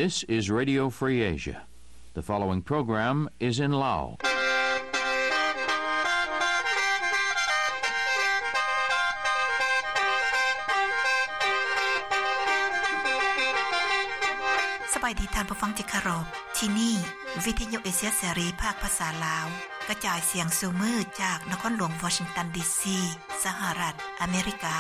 This is Radio Free Asia. The following program is in Lao. ສະບາຍດີທ່ານຜູ້ຟັງທີ່ເຄົາລົບ. ທີ່ນີ້ ວິທະຍຸເອເຊຍເສລີ ພາກພາສາລາວ ກະຈາຍສຽງສູ່ມື້ຈາກນະຄອນຫຼວງວໍຊິງຕັນ ດີຊີ ສະຫະລັດອາເມລິກາ.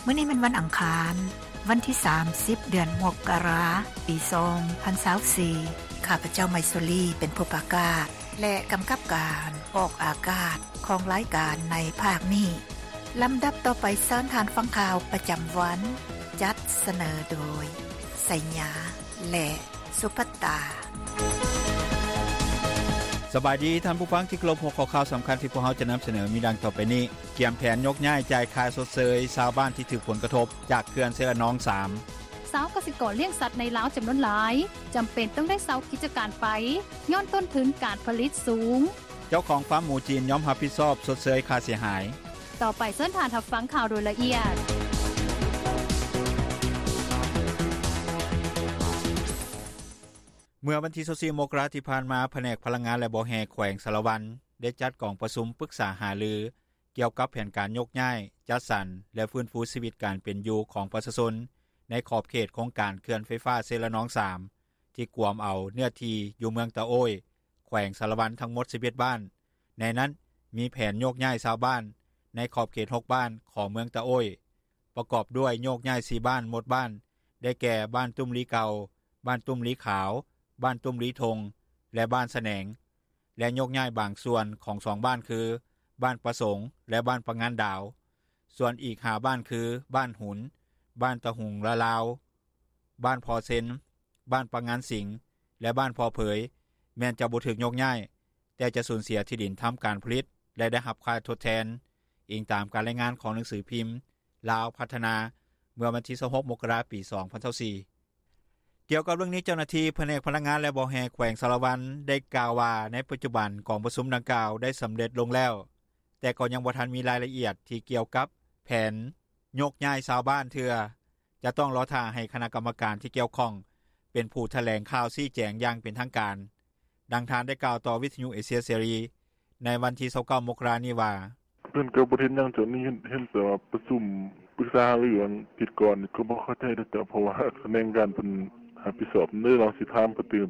ມື້ນີ້ແມ່ນວັນອັງຄານ, ວັນທີສາມສິບ ເດືອນມົກກະລາ ປີສອງພັນຊາວສີ່. ຂ້າພະເຈົ້າ ໄມຊູລີ ເປັນຜູ້ປະກາດ ແລະ ກຳກັບການອອກອາກາດຂອງລາຍການໃນພາກນີ້. ລຳດັບຕໍ່ໄປ ເຊີນທ່ານຟັງຂ່າວປະຈຳວັນ, ຈັດສະເໜີໂດຍ ໄຊຍາ ແລະ ສຸພັດຕາ. ສະບາຍດີທ່ານຜູ້ຟັງທີ່ເຄົາລົບ, ຫົວຂໍ້ຂ່າວສຳຄັນທີ່ພວກເຮົາຈະນຳສະເໜີມີດັ່ງຕໍ່ໄປນີ້: ກຽມແຜນຍົກຍ້າຍຈ່າຍຄ່າຊົດເຊີຍຊາວບ້ານທີ່ຖືກຜົນກະທົບຈາກເຂື່ອນເຊລະນອງສາມ. ຊາວກະສິກອນລ້ຽງສັດໃນລາວຈຳນວນຫຼາຍ ຈຳເປັນຕ້ອງໄດ້ເຊົາກິດຈະການໄປ ຍ້ອນຕົ້ນທຶນການຜະລິດສູງ. ເຈົ້າຂອງຟາມໝູຈີນຍອມຮັບຜິດຊອບຊົດເຊີຍຄ່າເສຍຫາຍ. ຕໍ່ໄປເຊີນທ່ານຮັບຟັງຂ່າວໂດຍລະອຽດ. ເມື່ອວັນທີຊາວສີ່ ມົກກະລາທີ່ຜ່ານມາ, ພະແນກພະລັງງານ ແລະ ບໍ່ແຮ່ ແຂວງສາລະວັນ ໄດ້ຈັດກອງປະຊຸມປຶກສາຫາລື ກ່ຽວກັບແຜນການຍົກຍ້າຍ, ຈັດສັນ ແລະ ຟື້ນຟູຊີວິດການເປັນຢູ່ຂອງປະຊາຊົນ ໃນຂອບເຂດໂຄງການເຂື່ອນໄຟຟ້າເຊລະນອງສາມ ທີ່ກວມເອົາເນື້ອທີ່ຢູ່ເມືອງຕະໂອ້ຍ ແຂວງສາລະວັນ ທັງໝົດສິບເອັດບ້ານ. ໃນນັ້ນ ມີແຜນໂຍກຍ້າຍຊາວບ້ານໃນຂອບເຂດຫົກບ້ານຂອງເມືອງຕະໂອ້ຍ ປະກອບດ້ວຍໂຍກຍ້າຍສີ່ບ້ານໝົດບ້ານ ໄດ້ແກ່ ບ້ານຕຸ້ມລີເກົ່າ, ບ້ານຕຸ້ມລີຂາວ, ບ້ານຕຸ້ມລີທົ່ງ ແລະ ບ້ານສະແໜງ ແລະ ໂຍກຍ້າຍບາງສ່ວນຂອງສອງບ້ານຄື ບ້ານປະສົງ ແລະ ບ້ານປະງານດາວ. ສ່ວນອີກຫ້າບ້ານຄື ບ້ານຫຸນ, ບ້ານຕະຫຸງລະລາວ, ບ້ານພໍ່ເຊັນ, ບ້ານປະງານສິງ ແລະ ບ້ານພໍ່ເຜີຍ ແມ່ນຈະບໍ່ຖືກໂຍກຍ້າຍ, ແຕ່ຈະສູນເສຍທີ່ດິນທຳການຜະລິດ ແລະ ໄດ້ຮັບຄ່າທົດແທນ, ອີງຕາມການລາຍງານຂອງໜັງສືພິມ ລາວພັດທະນາ ເມື່ອວັນທີຊາວຫົກ ມົກກະລາ ປີສອງພັນຊາວສີ່. ກ່ຽວກັບເລື່ອງນີ້, ເຈົ້າໜ້າທີ່ພະແນກພະລັງງານ ແລະ ບໍ່ແຮ່ ແຂວງສາລະວັນ ໄດ້ກ່າວວ່າ ໃນປັດຈຸບັນກອງປະຊຸມດັ່ງກ່າວໄດ້ສຳເລັດລົງແລ້ວ, ແຕ່ກໍຍັງບໍ່ທັນມີລາຍລະອຽດທີ່ກ່ຽວກັບແຜນໂຍກຍ້າຍຊາວບ້ານເທື່ອ, ຈະຕ້ອງລໍຖ້າໃຫ້ຄະນະກຳມະການທີ່ກ່ຽວຂ້ອງເປັນຜູ້ຖະແຫຼງຂ່າວຊີ້ແຈງຢ່າງເປັນທາງການ. ດັ່ງທ່ານໄດ້ກ່າວຕໍ່ວິທະຍຸເອເຊຍເສລີ ໃນວັນທີຊາວເກົ້າ ມົກກະລານີ້ວ່າ: ເພິ່ນກໍບໍ່ເຫັນຫຍັງຈາກນີ້, ເຫັນແຕ່ວ່າປະຊຸມປຶກສາຫາລືອັນທິດກ່ອນນີ້ ກໍບໍ່ເຂົ້າໃຈເດ້ເຈົ້າ, ເພາະວ່າຂະແໜງການເພິ່ນຮັບຜິດຊອບເດ້, ລອງຊິຖາມເພິ່ນຕື່ມ.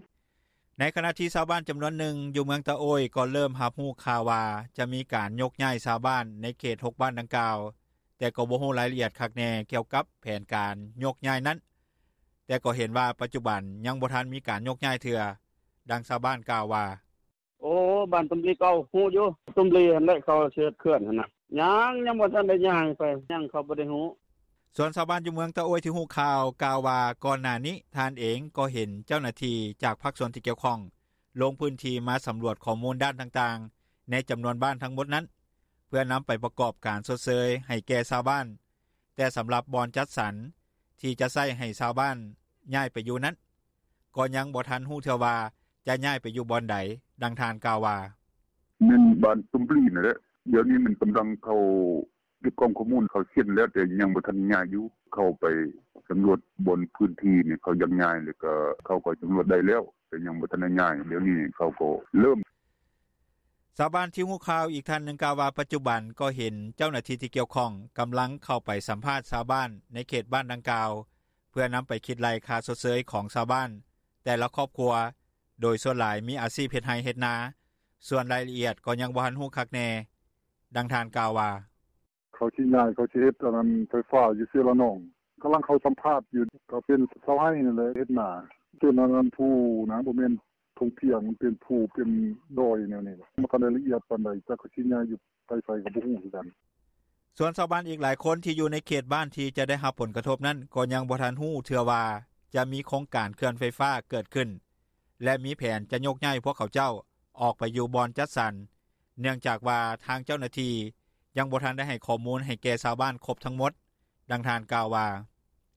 ໃນຂະນະທີ່ຊາວບ້ານຈຳນວນໜຶ່ງຢູ່ເມືອງຕະໂອ້ຍ ກໍເລີ່ມຮັບຮູ້ຂ່າວວ່າຈະມີການໂຍກຍ້າຍຊາວບ້ານໃນເຂດຫົກບ້ານດັ່ງກ່າວ, ແຕ່ກໍບໍ່ຮູ້ລາຍລະອຽດຄັກແນ່ກ່ຽວກັບແຜນການໂຍກຍ້າຍນັ້ນ, ແຕ່ກໍເຫັນວ່າປັດຈຸບັນຍັງບໍ່ທັນມີການໂຍກຍ້າຍເທື່ອ. ດັ່ງຊາວບ້ານກ່າວວ່າ: ໂອ້ ບ້ານຕຸ້ມລີເກົ່າ ຮູ້ຢູ່ ຕຸ້ມລີຫັ້ນແຫຼະ ເຂົາຊິເຮັດເຂື່ອນຫັ້ນນະ. ຍັງ ຍັງບໍ່ທັນໄດ້ຍ້າຍໄປ ຍັງ ເຂົາບໍ່ໄດ້ຮູ້. ສ່ວນຊາວບ້ານຢູ່ເມືອງຕະໂອ້ຍທີ່ຮູ້ຂ່າວ ກ່າວວ່າ ກ່ອນໜ້ານີ້ທ່ານເອງກໍເຫັນເຈົ້າໜ້າທີ່ຈາກພາກສ່ວນທີ່ກ່ຽວຂ້ອງ ລົງພື້ນທີ່ມາສຳຫຼວດຂໍ້ມູນດ້ານຕ່າງໆ ໃນຈຳນວນບ້ານທັງໝົດນັ້ນ ເພື່ອນຳໄປປະກອບການຊົດເຊີຍໃຫ້ແກ່ຊາວບ້ານ, ແຕ່ສຳລັບບ່ອນຈັດສັນທີ່ຈະໃຊ້ໃຫ້ຊາວບ້ານຍ້າຍໄປຢູ່ນັ້ນ ກໍຍັງບໍ່ທັນຮູ້ເທື່ອວ່າຈະຍ້າຍໄປຢູ່ບ່ອນໃດ. ດັ່ງທ່ານກ່າວວ່າ: ແມ່ນບ້ານຕຸ້ມລີນັ້ນແຫຼະ, ດຽວນີ້ມັນກຳລັງເຂົ້າເກັບກອງຂໍ້ມູນ, ເຂົາເຊັນແລ້ວ ແຕ່ຍັງບໍ່ທັນຍ້າຍຢູ່. ເຂົ້າໄປສຳຫຼວດບ່ອນພື້ນທີ່ນີ້ ເຂົາຢາກຍ້າຍ ແລ້ວກໍເຂົາກໍສຳຫຼວດໄດ້ແລ້ວ ແຕ່ຍັງບໍ່ທັນໄດ້ຍ້າຍ, ດຽວນີ້ເຂົາກໍເລີ່ມ. ຊາວບ້ານທີ່ຮູ້ຂ່າວອີກທ່ານໜຶ່ງກ່າວວ່າ ປັດຈຸບັນກໍເຫັນເຈົ້າໜ້າທີ່ທີ່ກ່ຽວຂ້ອງກຳລັງເຂົ້າໄປສຳພາດຊາວບ້ານໃນເຂດບ້ານດັ່ງກ່າວ ເພື່ອນຳໄປຄິດໄລ່ຄ່າຊົດເຊີຍຂອງຊາວບ້ານແຕ່ລະຄອບຄົວ, ໂດຍສ່ວນຫຼາຍມີອາຊີບເຮັດໄຮ່ເຮັດນາ, ສ່ວນລາຍລະອຽດກໍຍັງບໍ່ທັນຮູ້ຄັກແນ່. ດັ່ງທ່ານກ່າວວ່າ: ເຂົາຊິຍ້າຍ ເຂົາຊິເຮັດອັນນັ້ນ ໄຟຟ້າຢູ່ເຊລະນອງ, ກຳລັງເຂົ້າສຳພາດຢູ່. ກໍເປັນຊາວໄຮ່ນັ້ນແຫຼະ ເຮັດນາ. ເປັນອັນນັ້ນພູນະ, ບໍ່ແມ່ນທົ່ງພຽງ, ມັນເປັນພູ ເປັນດອຍແນວນີ້. ບໍ່ທັນໄດ້ລະອຽດປານໃດ, ຈັກເຂົາຊິຍ້າຍຢູ່ໄປໃສກໍບໍ່ຮູ້ຄືກັນ. ສ່ວນຊາວບ້ານອີກຫຼາຍຄົນທີ່ຢູ່ໃນເຂດບ້ານທີ່ຈະໄດ້ຮັບຜົນກະທົບນັ້ນ ກໍຍັງບໍ່ທັນຮູ້ເທື່ອວ່າຈະມີໂຄງການເຂື່ອນໄຟຟ້າເກີດຂຶ້ນ ແລະ ມີແຜນຈະຍົກຍ້າຍພວກເຂົາເຈົ້າອອກໄປຢູ່ບ່ອນຈັດສັນ, ເນື່ອງຈາກວ່າທາງເຈົ້າໜ້າທີ່ຍັງບໍ່ທັນໄດ້ໃຫ້ຂໍ້ມູນໃຫ້ແກ່ຊາວບ້ານຄົບທັງໝົດ. ດັ່ງທ່ານກ່າວວ່າ: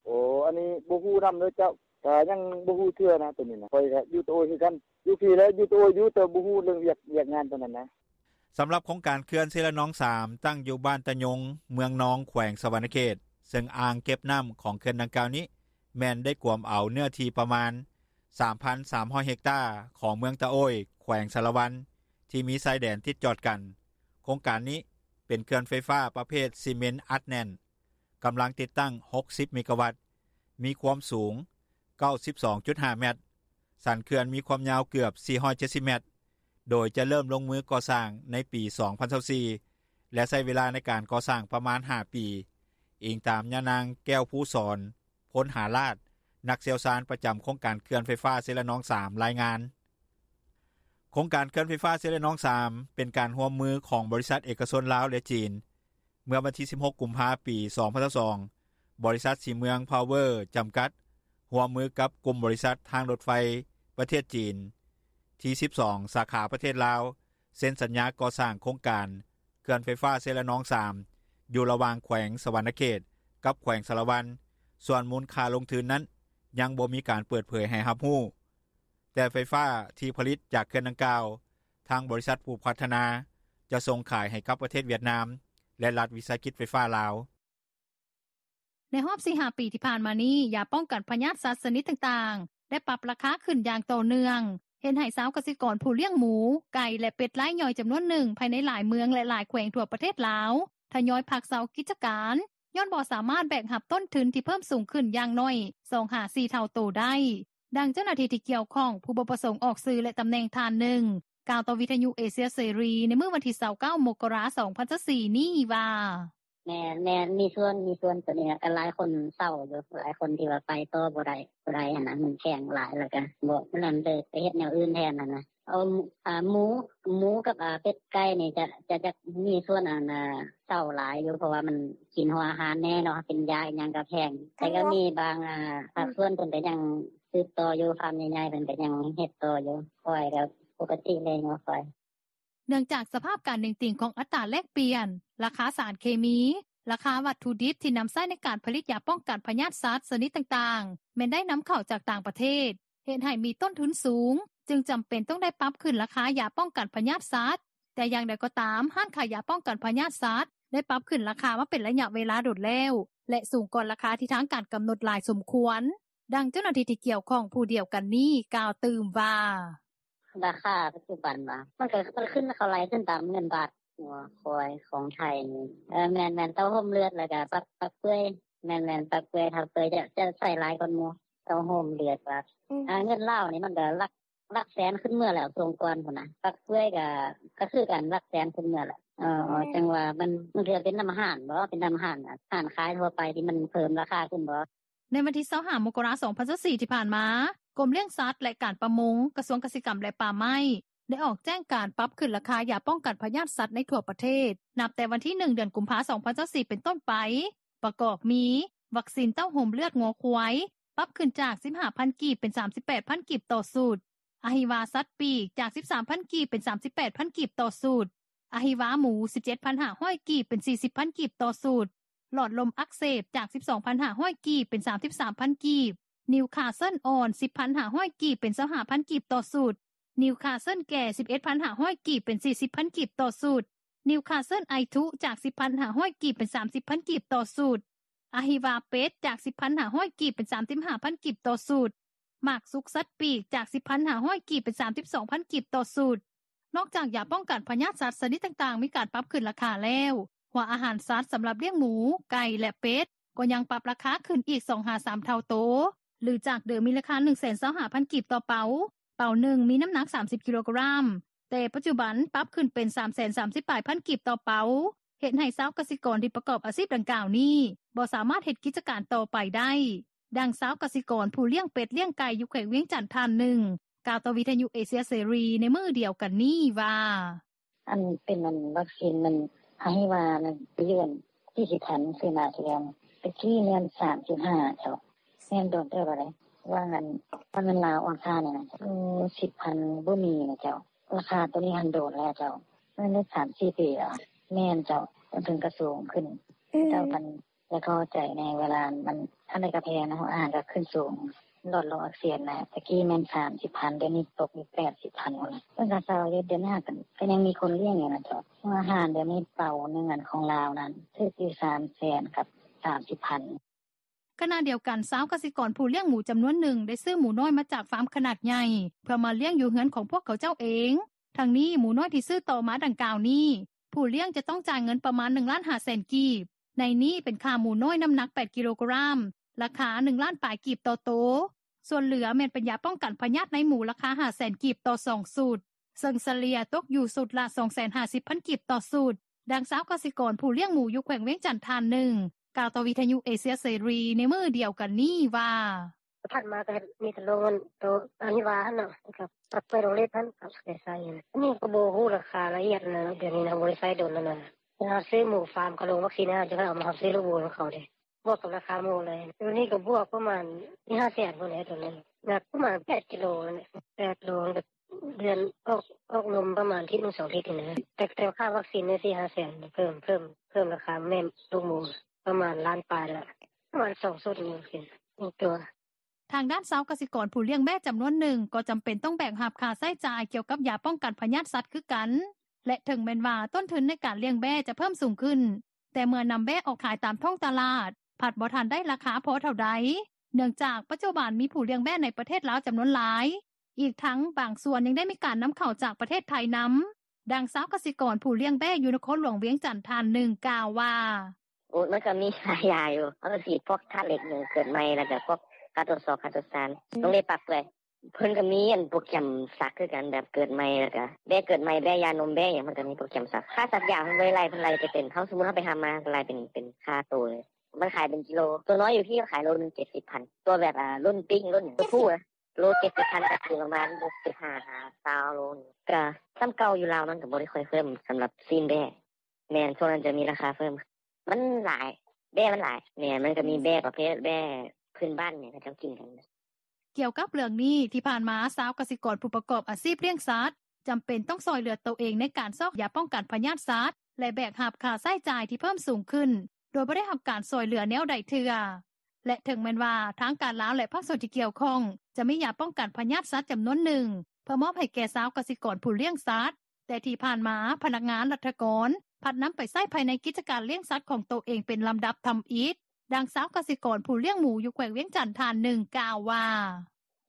ໂອ້ ອັນນີ້ບໍ່ຮູ້ນຳເດີເຈົ້າ, ກະຍັງບໍ່ຮູ້ເທື່ອນະໂຕນີ້ນະ. ຂ້ອຍກະຢູ່ຕະໂອ້ຍຄືກັນ, ຢູ່ພີ້ແຫຼະ ຢູ່ຕະໂອ້ຍຢູ່, ແຕ່ບໍ່ຮູ້ເລື່ອງວຽກ ວຽກງານປານນັ້ນນະ. ສຳລັບໂຄງການເຂື່ອນເຊລະນອງ 3 ຕັ້ງຢູ່ບ້ານຕະຍົງ ເມືອງນອງ ແຂວງສະຫວັນນະເຂດ ເຊິ່ງອ່າງເກັບນໍ້າຂອງເຂື່ອນດັ່ງກ່າວນີ້ ແມ່ນໄດ້ກວມເອົາເນື້ອທີ່ປະມານ 3,300 ເຮັກຕາ ຂອງເມືອງຕະໂອ້ຍ ແຂວງສາລະວັນ ທີ່ມີຊາຍແດນຕິດຈອດກັນ. ໂຄງການນີ້ເປັນເຂື່ອນໄຟຟ້າປະເພດຊີເມັນອັດແໜ້ນ ກຳລັງຕິດຕັ້ງ 60 ເມກາວັດ, ມີຄວາມສູງ 92.5 ແມັດ, ສັນເຂື່ອນມີຄວາມຍາວເກືອບ 470 ແມັດ, ໂດຍຈະເລີ່ມລົງມືກໍ່ສ້າງໃນປີ 2024 ແລະ ໃຊ້ເວລາໃນການກໍ່ສ້າງປະມານ 5 ປີ, ອີງຕາມຍານາງ ແກ້ວພູສອນ ພົນຫາລາດ ນັກຊ່ຽວຊານປະຈຳໂຄງການເຂື່ອນໄຟຟ້າເຊລະນອງ 3 ລາຍງານ. ໂຄງການເຂື່ອນໄຟຟ້າເຊລະນອງ 3 ເປັນການຮ່ວມມືຂອງບໍລິສັດເອກະຊົນລາວ ແລະ ຈີນ. ເມື່ອວັນທີ 16 ກຸມພາ 2022, ບໍລິສັດສີເມືອງພາວເວີ ຈຳກັດ ຮ່ວມມືກັບກຸ່ມບໍລິສັດທາງລົດໄຟປະເທດຈີນ ທີ 12 ສາຂາປະເທດລາວ ເຊັນສັນຍາກໍ່ສ້າງໂຄງການເຂື່ອນໄຟຟ້າເຊລະນອງ 3 ຢູ່ລະຫວ່າງແຂວງສະຫວັນນະເຂດ ກັບແຂວງສາລະວັນ. ສ່ວນມູນຄ່າລົງທຶນນັ້ນ ຍັງບໍ່ມີການເປີດເຜີຍໃຫ້ຮັບຮູ້, ແຕ່ໄຟຟ້າທີ່ຜະລິດຈາກເຂື່ອນດັ່ງກ່າວ ທາງບໍລິສັດຜູ້ພັດທະນາ ຈະສົ່ງຂາຍໃຫ້ກັບປະເທດຫວຽດນາມ ແລະ ລັດວິສາຫະກິດໄຟຟ້າລາວ. ໃນຮອບ 4-5 ປີທີ່ຜ່ານມານີ້, ຢາປ້ອງກັນພະຍາດສັດຊະນິດຕ່າງໆ ໄດ້ປັບລາຄາຂຶ້ນຢ່າງຕໍ່ເນື່ອງ, ເຮັດໃຫ້ຊາວກະສິກອນຜູ້ລ້ຽງໝູ, ໄກ່ ແລະ ເປັດລາຍຍ່ອຍຈຳນວນໜຶ່ງ ພາຍໃນຫຼາຍເມືອງ ແລະ ຫຼາຍແຂວງທົ່ວປະເທດລາວ ທະຍອຍພັກເຊົາກິດຈະການ ຍ້ອນບໍ່ສາມາດແບກຮັບຕົ້ນທຶນທີ່ເພີ່ມສູງຂຶ້ນຢ່າງໜ້ອຍ ສອງຫາສີ່ ເທົ່າໂຕໄດ້. ດັ່ງເຈົ້າໜ້າທີ່ທີ່ກ່ຽວຂ້ອງ ຜູ້ບໍ່ປະສົງອອກຊື່ ແລະ ຕຳແໜ່ງທ່ານໜຶ່ງ ກ່າວຕໍ່ວິທະຍຸເອເຊຍເສລີ ໃນມື້ວັນທີ 29 ມົກກະລາ 2024 ນີ້ວ່າ: ແມ່ນໆ ມີສ່ວນ ມີສ່ວນ ໂຕນີ້ນະ ກໍຫຼາຍຄົນເຊົາຢູ່ ຫຼາຍຄົນທີ່ວ່າໄປຕໍ່ບໍ່ໄດ້ ບໍ່ໄດ້ຫັ້ນນະ ມັນແພງຫຼາຍ ແລ້ວກໍບໍ່ ມັນເລີຍໄປເຮັດແນວອື່ນແທນຫັ້ນນະ. ເອົາ ອາ ໝູ ໝູກັບ ອາ ເປັດໄກ່ນີ້ຈະ ຈະ ຈະມີສ່ວນ ອັນ ອາ ເຊົາຫຼາຍຢູ່ ເພາະວ່າມັນກິນຫົວອາຫານແດ່ເນາະ ເປັນຢາອີ່ຫຍັງກໍແພງ ແຕ່ກໍມີບາງ ອາ ພາກສ່ວນເພິ່ນກໍຍັງສືບຕໍ່ຢູ່ ຟາມໃຫຍ່ໆ ເພິ່ນກໍຍັງເຮັດຕໍ່ຢູ່ ຂ້ອຍກໍປົກກະຕິແລ້ວເນາະຂ້ອຍ. ເນື່ອງຈາກສະພາບການເໜັງຕີງຂອງອັດຕາແລກປ່ຽນ, ລາຄາສານເຄມີ, ລາຄາວັດຖຸດິບທີ່ນຳໃຊ້ໃນການຜະລິດຢາປ້ອງກັນພະຍາດສັດຊະນິດຕ່າງໆ ແມ່ນໄດ້ນຳເຂົ້າຈາກຕ່າງປະເທດ, ເຮັດໃຫ້ມີຕົ້ນທຶນສູງ, ຈຶ່ງຈຳເປັນຕ້ອງໄດ້ປັບຂຶ້ນລາຄາຢາປ້ອງກັນພະຍາດສັດ. ແຕ່ຢ່າງໃດກໍຕາມ, ຮ້ານຂາຍຢາປ້ອງກັນພະຍາດສັດ ໄດ້ປັບຂຶ້ນລາຄາມາເປັນໄລຍະເວລາດົນແລ້ວ ແລະ ສູງກວ່າລາຄາທີ່ທາງການກຳນົດຫຼາຍສົມຄວນ. ດັ່ງເຈົ້າໜ້າທີ່ທີ່ກ່ຽວຂ້ອງຜູ້ດຽວກັນນີ້ກ່າວຕື່ມວ່າ: ລາຄາປັດຈຸບັນຫວາ? ມັນກໍ ມັນຂຶ້ນ ເຂົາໄລ່ຂຶ້ນຕາມເງິນບາດ. ງົວຄວາຍຂອງໄທນີ້ ເອີ ແມ່ນໆ ເຕົ້າໂຮມເລືອດ ແລ້ວກໍປັກ ປັກເປື່ອຍ. ແມ່ນໆ ປັກເປື່ອຍ ເທົາເປື່ອຍຈະ ຈະໃຊ້ຫຼາຍກວ່າໝູ່. ເຕົ້າໂຮມເລືອດວ່າ ອືມ ອ່າ ເງິນລາວນີ້ມັນກໍຫຼັກ ຫຼັກແສນຂຶ້ນເມືອແລ້ວ ຊ່ວງກ່ອນພຸ້ນນະ. ປັກເປື່ອຍກໍ ກໍຄືກັນ ຫຼັກແສນຂຶ້ນເມືອແລ້ວ. ເອີ ອືມ ຈັ່ງວ່າມັນ ມັນເປັນນຳຮ້ານບໍ? ເປັນນຳຮ້ານ ຮ້ານຂາຍທົ່ວໄປທີ່ມັນເພີ່ມລາຄາຂຶ້ນບໍ? ໃນວັນທີ 25 ມົກກະລາ 2024 ທີ່ຜ່ານມາ, ກົມລ້ຽງສັດ ແລະ ການປະມົງ, ກະຊວງກະສິກຳ ແລະ ປ່າໄມ້ ໄດ້ອອກແຈ້ງການປັບຂຶ້ນລາຄາຢາປ້ອງກັນພະຍາດສັດໃນທົ່ວປະເທດ ນັບແຕ່ວັນທີ 1 ເດືອນກຸມພາ 2024 ເປັນຕົ້ນໄປ, ປະກອບມີ ວັກຊີນເຕົ້າໂຮມເລືອດງົວຄວາຍ ປັບຂຶ້ນຈາກ 15,000 ກີບ ເປັນ 38,000 ກີບຕໍ່ຊຸດ, ອະຫິວາສັດປີກ ຈາກ 13,000 ກີບ ເປັນ 38,000 ກີບຕໍ່ຊຸດ, ອະຫິວາໝູ 17,500 ກີບ ເປັນ 40,000 ກີບຕໍ່ຊຸດ, ຫຼອດລົມອັກເສບ ຈາກ 12,500 ກີບ ເປັນ 33,000 ກີບ, ນິວຄາເຊິນອ່ອນ 10,500 ກີບ ເປັນ 25,000 ກີບຕໍ່ຊຸດ, ນິວຄາເຊິນແກ່ 11,500 ກີບ ເປັນ 40,000 ກີບຕໍ່ຊຸດ, ນິວຄາເຊິນໄອທຸ ຈາກ 10,500 ກີບ ເປັນ 30,000 ກີບຕໍ່ຊຸດ, ອະຫິວາເປັດ ຈາກ 10,500 ກີບ ເປັນ 35,000 ກີບຕໍ່ຊຸດ, ໝາກສຸກສັດປີກ ຈາກ 10,500 ກີບ ເປັນ 32,000 ກີບຕໍ່ຊຸດ. ນອກຈາກຢາປ້ອງກັນພະຍາດສັດຊະນິດຕ່າງໆ ມີການປັບຂຶ້ນລາຄາແລ້ວ, ຫົວອາຫານສັດສຳລັບລ້ຽງໝູ, ໄກ່ ແລະ ເປັດ ກໍຍັງປັບລາຄາຂຶ້ນອີກ ສອງຫາສາມ ເທົ່າໂຕ ຫຼື ຈາກເດີມມີລາຄາ 125,000 ກີບຕໍ່ເປົາ, ເປົາໜຶ່ງມີນ້ຳໜັກ 30 ກິໂລກຣາມ, ແຕ່ປັດຈຸບັນປັບຂຶ້ນເປັນ 330 ປາຍພັນກີບຕໍ່ເປົາ, ເຮັດໃຫ້ຊາວກະສິກອນທີ່ປະກອບອາຊີບດັ່ງກ່າວນີ້ ບໍ່ສາມາດເຮັດກິດຈະການຕໍ່ໄປໄດ້. ດັ່ງຊາວກະສິກອນຜູ້ລ້ຽງເປັດລ້ຽງໄກ່ຢູ່ແຂວງວຽງຈັນທ່ານໜຶ່ງ ກ່າວຕໍ່ວິທະຍຸເອເຊຍເສລີໃນມື້ດຽວກັນນີ້ວ່າ: ອັນເປັນ ອັນວັກຊີນມັນ ອະຫິວານັ້ນ ໄປຢູ່ອັນ ສີ່ສິບພັນ ຊື້ມາເທື່ອ ໄປຊື້ເງິນ 35 ເຈົ້າ. ແມ່ນ ໂດນເຕີບແລ້ວເດ້ ວ່າອັນ ວ່າເງິນລາວອ່ອນຄ່ານີ້ນະ ໂອ້ ສິບພັນ ບໍ່ມີນະເຈົ້າ. ລາຄາໂຕນີ້ຫັ້ນໂດນແລ້ວເຈົ້າ ແມ່ນໄດ້ ສາມສີ່ ປີແລ້ວ. ແມ່ນເຈົ້າ ຕົ້ນທຶນກໍສູງຂຶ້ນ. ເຈົ້າ ອັນ ຢາກເຂົ້າໃຈແດ່ ເວລາມັນ ອັນໃດກໍແພງເນາະ ອາຫານກໍຂຶ້ນສູງ. ລອດຫຼໍ່ອັກເສບນະ ແຕ່ກີ້ແມ່ນ ສາມສິບພັນ ດຽວນີ້ຕົກຢູ່ ແປດສິບພັນພຸ້ນລະ ເພິ່ນກໍເຊົາຢູ່ ດຽວນີ້ກໍຍັງມີຄົນລ້ຽງຢູ່ນະເຈົ້າ ເພາະວ່າອາຫານດຽວນີ້ ເປົາໜຶ່ງອັນຂອງລາວນັ້ນ ຖືກຢູ່ ສາມແສນ ກັບ ສາມສິບພັນ." ຂະນະດຽວກັນ ຊາວກະສິກອນຜູ້ລ້ຽງໝູຈຳນວນໜຶ່ງ ໄດ້ຊື້ໝູນ້ອຍມາຈາກຟາມຂະໜາດໃຫຍ່ ເພື່ອມາລ້ຽງຢູ່ເຮືອນຂອງພວກເຂົາເຈົ້າເອງ. ທັງນີ້ ໝູນ້ອຍທີ່ຊື້ຕໍ່ມາດັ່ງກ່າວນີ້ ຜູ້ລ້ຽງຈະຕ້ອງຈ່າຍເງິນປະມານ ໜຶ່ງລ້ານຫ້າແສນກີບ, ໃນນີ້ເປັນຂ້າໝູນ້ອຍນ້ຳໜັກ ແປດກິໂລກຣາມ ລາຄາ ໜຶ່ງລ້ານປາຍກີບຕໍ່ໂຕ. ສ່ວນເຫຼືອແມ່ນເປັນຢາປ້ອງກັນພະຍາດໃນໝູ ລາຄາ ຫ້າແສນກີບຕໍ່ສອງຊຸດ, ເຊິ່ງສະເລ່ຍຕົກຢູ່ຊຸດລະ ສອງແສນຫ້າສິບພັນກີບຕໍ່ຊຸດ. ດັ່ງຊາວກະສິກອນຜູ້ລ້ຽງໝູຢູ່ແຂວງວຽງຈັນທ່ານໜຶ່ງ ກ່າວຕໍ່ວິທະຍຸເອເຊຍເສລີໃນມື້ດຽວກັນນີ້ວ່າ: "ຜ່ານມາກໍມີແຕ່ໂລງໂຕອັນທີ່ວ່າຫັ້ນເນາະ ແລ້ວກໍປັກເປີດໂຮງເລັດຫັ້ນ ກໍໄດ້ໃຊ້ອັນນີ້ ກໍບໍ່ຮູ້ລາຄາລະອຽດນະ ດຽວນີ້ນະ ບໍ່ໄດ້ໃຊ້ດົນແລ້ວນະ ເວລາເຮົາຊື້ໝູຟາມ ເຂົາລົງວັກຊີນໃຫ້ເຮົາ ຈັ່ງຄ່ອຍເອົາມາ ເຮົາຊື້ລູກໝູນຳເຂົາເດ້ ບວກກັບລາຄາໝູເລີຍ ດຽວນີ້ກໍບວກປະມານ ຫ້າແສນພຸ້ນແຫຼະ ໂຕໜຶ່ງ ໜັກປະມານ ແປດກິໂລ ແປດໂລ ເດືອນອອກ ອອກລົມປະມານທິດໜຶ່ງສອງທິດນີ້ນະ ແຕ່ ແຕ່ຄ່າວັກຊີນນີ້ ສີ່ຫ້າແສນ ເພີ່ມ ເພີ່ມ ເພີ່ມລາຄາແມ່ລູກໝູປະມານລ້ານປາຍລະ ປະມານສອງຊຸດນີ້ ວັກຊີນໜຶ່ງຕົວ." ທາງດ້ານຊາວກະສິກອນຜູ້ລ້ຽງແບ້ຈຳນວນໜຶ່ງ ກໍຈຳເປັນຕ້ອງແບກຮັບຄ່າໃຊ້ຈ່າຍກ່ຽວກັບຢາປ້ອງກັນພະຍາດສັດຄືກັນ ແລະ ເຖິງແມ່ນວ່າຕົ້ນທຶນໃນການລ້ຽງແບ້ຈະເພີ່ມສູງຂຶ້ນ ແຕ່ເມື່ອນຳແບ້ອອກຂາຍຕາມທ້ອງຕະຫຼາດ ພັດບໍ່ທັນໄດ້ລາຄາພໍເທົ່າໃດ ເນື່ອງຈາກປັດຈຸບັນມີຜູ້ລ້ຽງແບ້ໃນປະເທດລາວຈຳນວນຫຼາຍ ອີກທັງບາງສ່ວນຍັງໄດ້ມີການນຳເຂົ້າຈາກປະເທດໄທນຳ. ດັ່ງຊາວກະສິກອນຜູ້ລ້ຽງແບ້ຢູ່ນະຄອນຫຼວງວຽງຈັນທ່ານໜຶ່ງກ່າວວ່າ: "ໂອ້ ມັນກໍມີຫຼາຍຢ່າງຢູ່ ເຮົາກໍສີດພວກທາດເຫຼັກ ເກີດໃໝ່ ແລ້ວກໍພວກຄາໂຕຊອກ ຄາໂຕຊານ ໂຮງເລັດປາກເປື່ອຍ ເພິ່ນກໍມີອັນໂປຣແກຣມສັກຄືກັນ ແບບເກີດໃໝ່ ແລ້ວກໍແບ້ເກີດໃໝ່ ແບ້ຢານົມ ແບ້ຫຍັງ ເພິ່ນກໍມີໂປຣແກຣມສັກ ຄ່າສັກຢາເພິ່ນບໍ່ໄດ້ໄລ່ ເພິ່ນໄລ່ແຕ່ເປັນ ເຮົາ ສົມມຸດເຮົາໄປຮັບມາ ເພິ່ນໄລ່ເປັນ ເປັນຄ່າໂຕເລີຍ ມັນຂາຍເປັນກິໂລ ຕົວນ້ອຍຢູ່ພີ້ຂາຍໂລໜຶ່ງ ເຈັດສິບພັນ ຕົວແບບ ອ່າ ລຸ້ນປິ້ງ ລຸ້ນ ໂຕຜູ້ ໂລເຈັດສິບພັນ ກໍຄືປະມານ ສິບຫ້າຫາຊາວໂລນີ້ ກໍສ່ຳເກົ່າຢູ່ລາວ ມັນກໍບໍ່ໄດ້ຄ່ອຍເພີ່ມສຳລັບຊີ້ນແບ້ ແມ່ນ ຊ່ວງນັ້ນຈະມີລາຄາເພີ່ມ ມັນຫຼາຍ ແບ້ມັນຫຼາຍ ແມ່ນ ມັນກໍມີແບ້ປະເພດແບ້ພື້ນບ້ານ ແມ່ນ ເຂົາເຈົ້າກິນກັນ." ກ່ຽວກັບເລື່ອງນີ້ ທີ່ຜ່ານມາຊາວກະສິກອນຜູ້ປະກອບອາຊີບລ້ຽງສັດ ຈຳເປັນຕ້ອງຊ່ອຍເຫຼືອໂຕເອງໃນການຊອກຢາປ້ອງກັນພະຍາດສັດ ແລະ ແບກຮັບຄ່າໃຊ້ຈ່າຍທີ່ເພີ່ມສູງຂຶ້ນ ໂດຍບໍ່ໄດ້ຮັບການຊ່ອຍເຫຼືອແນວໃດເທື່ອ. ແລະ ເຖິງແມ່ນວ່າທາງການລາວ ແລະ ພາກສ່ວນທີ່ກ່ຽວຂ້ອງ ຈະມີຢາປ້ອງກັນພະຍາດສັດຈຳນວນໜຶ່ງ ເພື່ອມອບໃຫ້ແກ່ຊາວກະສິກອນຜູ້ລ້ຽງສັດ ແຕ່ທີ່ຜ່ານມາພະນັກງານລັດຖະກອນ ພັດນຳໄປໃຊ້ພາຍໃນກິດຈະການລ້ຽງສັດຂອງໂຕເອງເປັນລຳດັບທຳອິດ. ດັ່ງຊາວກະສິກອນຜູ້ລ້ຽງໝູຢູ່ແຂວງວຽງຈັນທ່ານໜຶ່ງກ່າວວ່າ: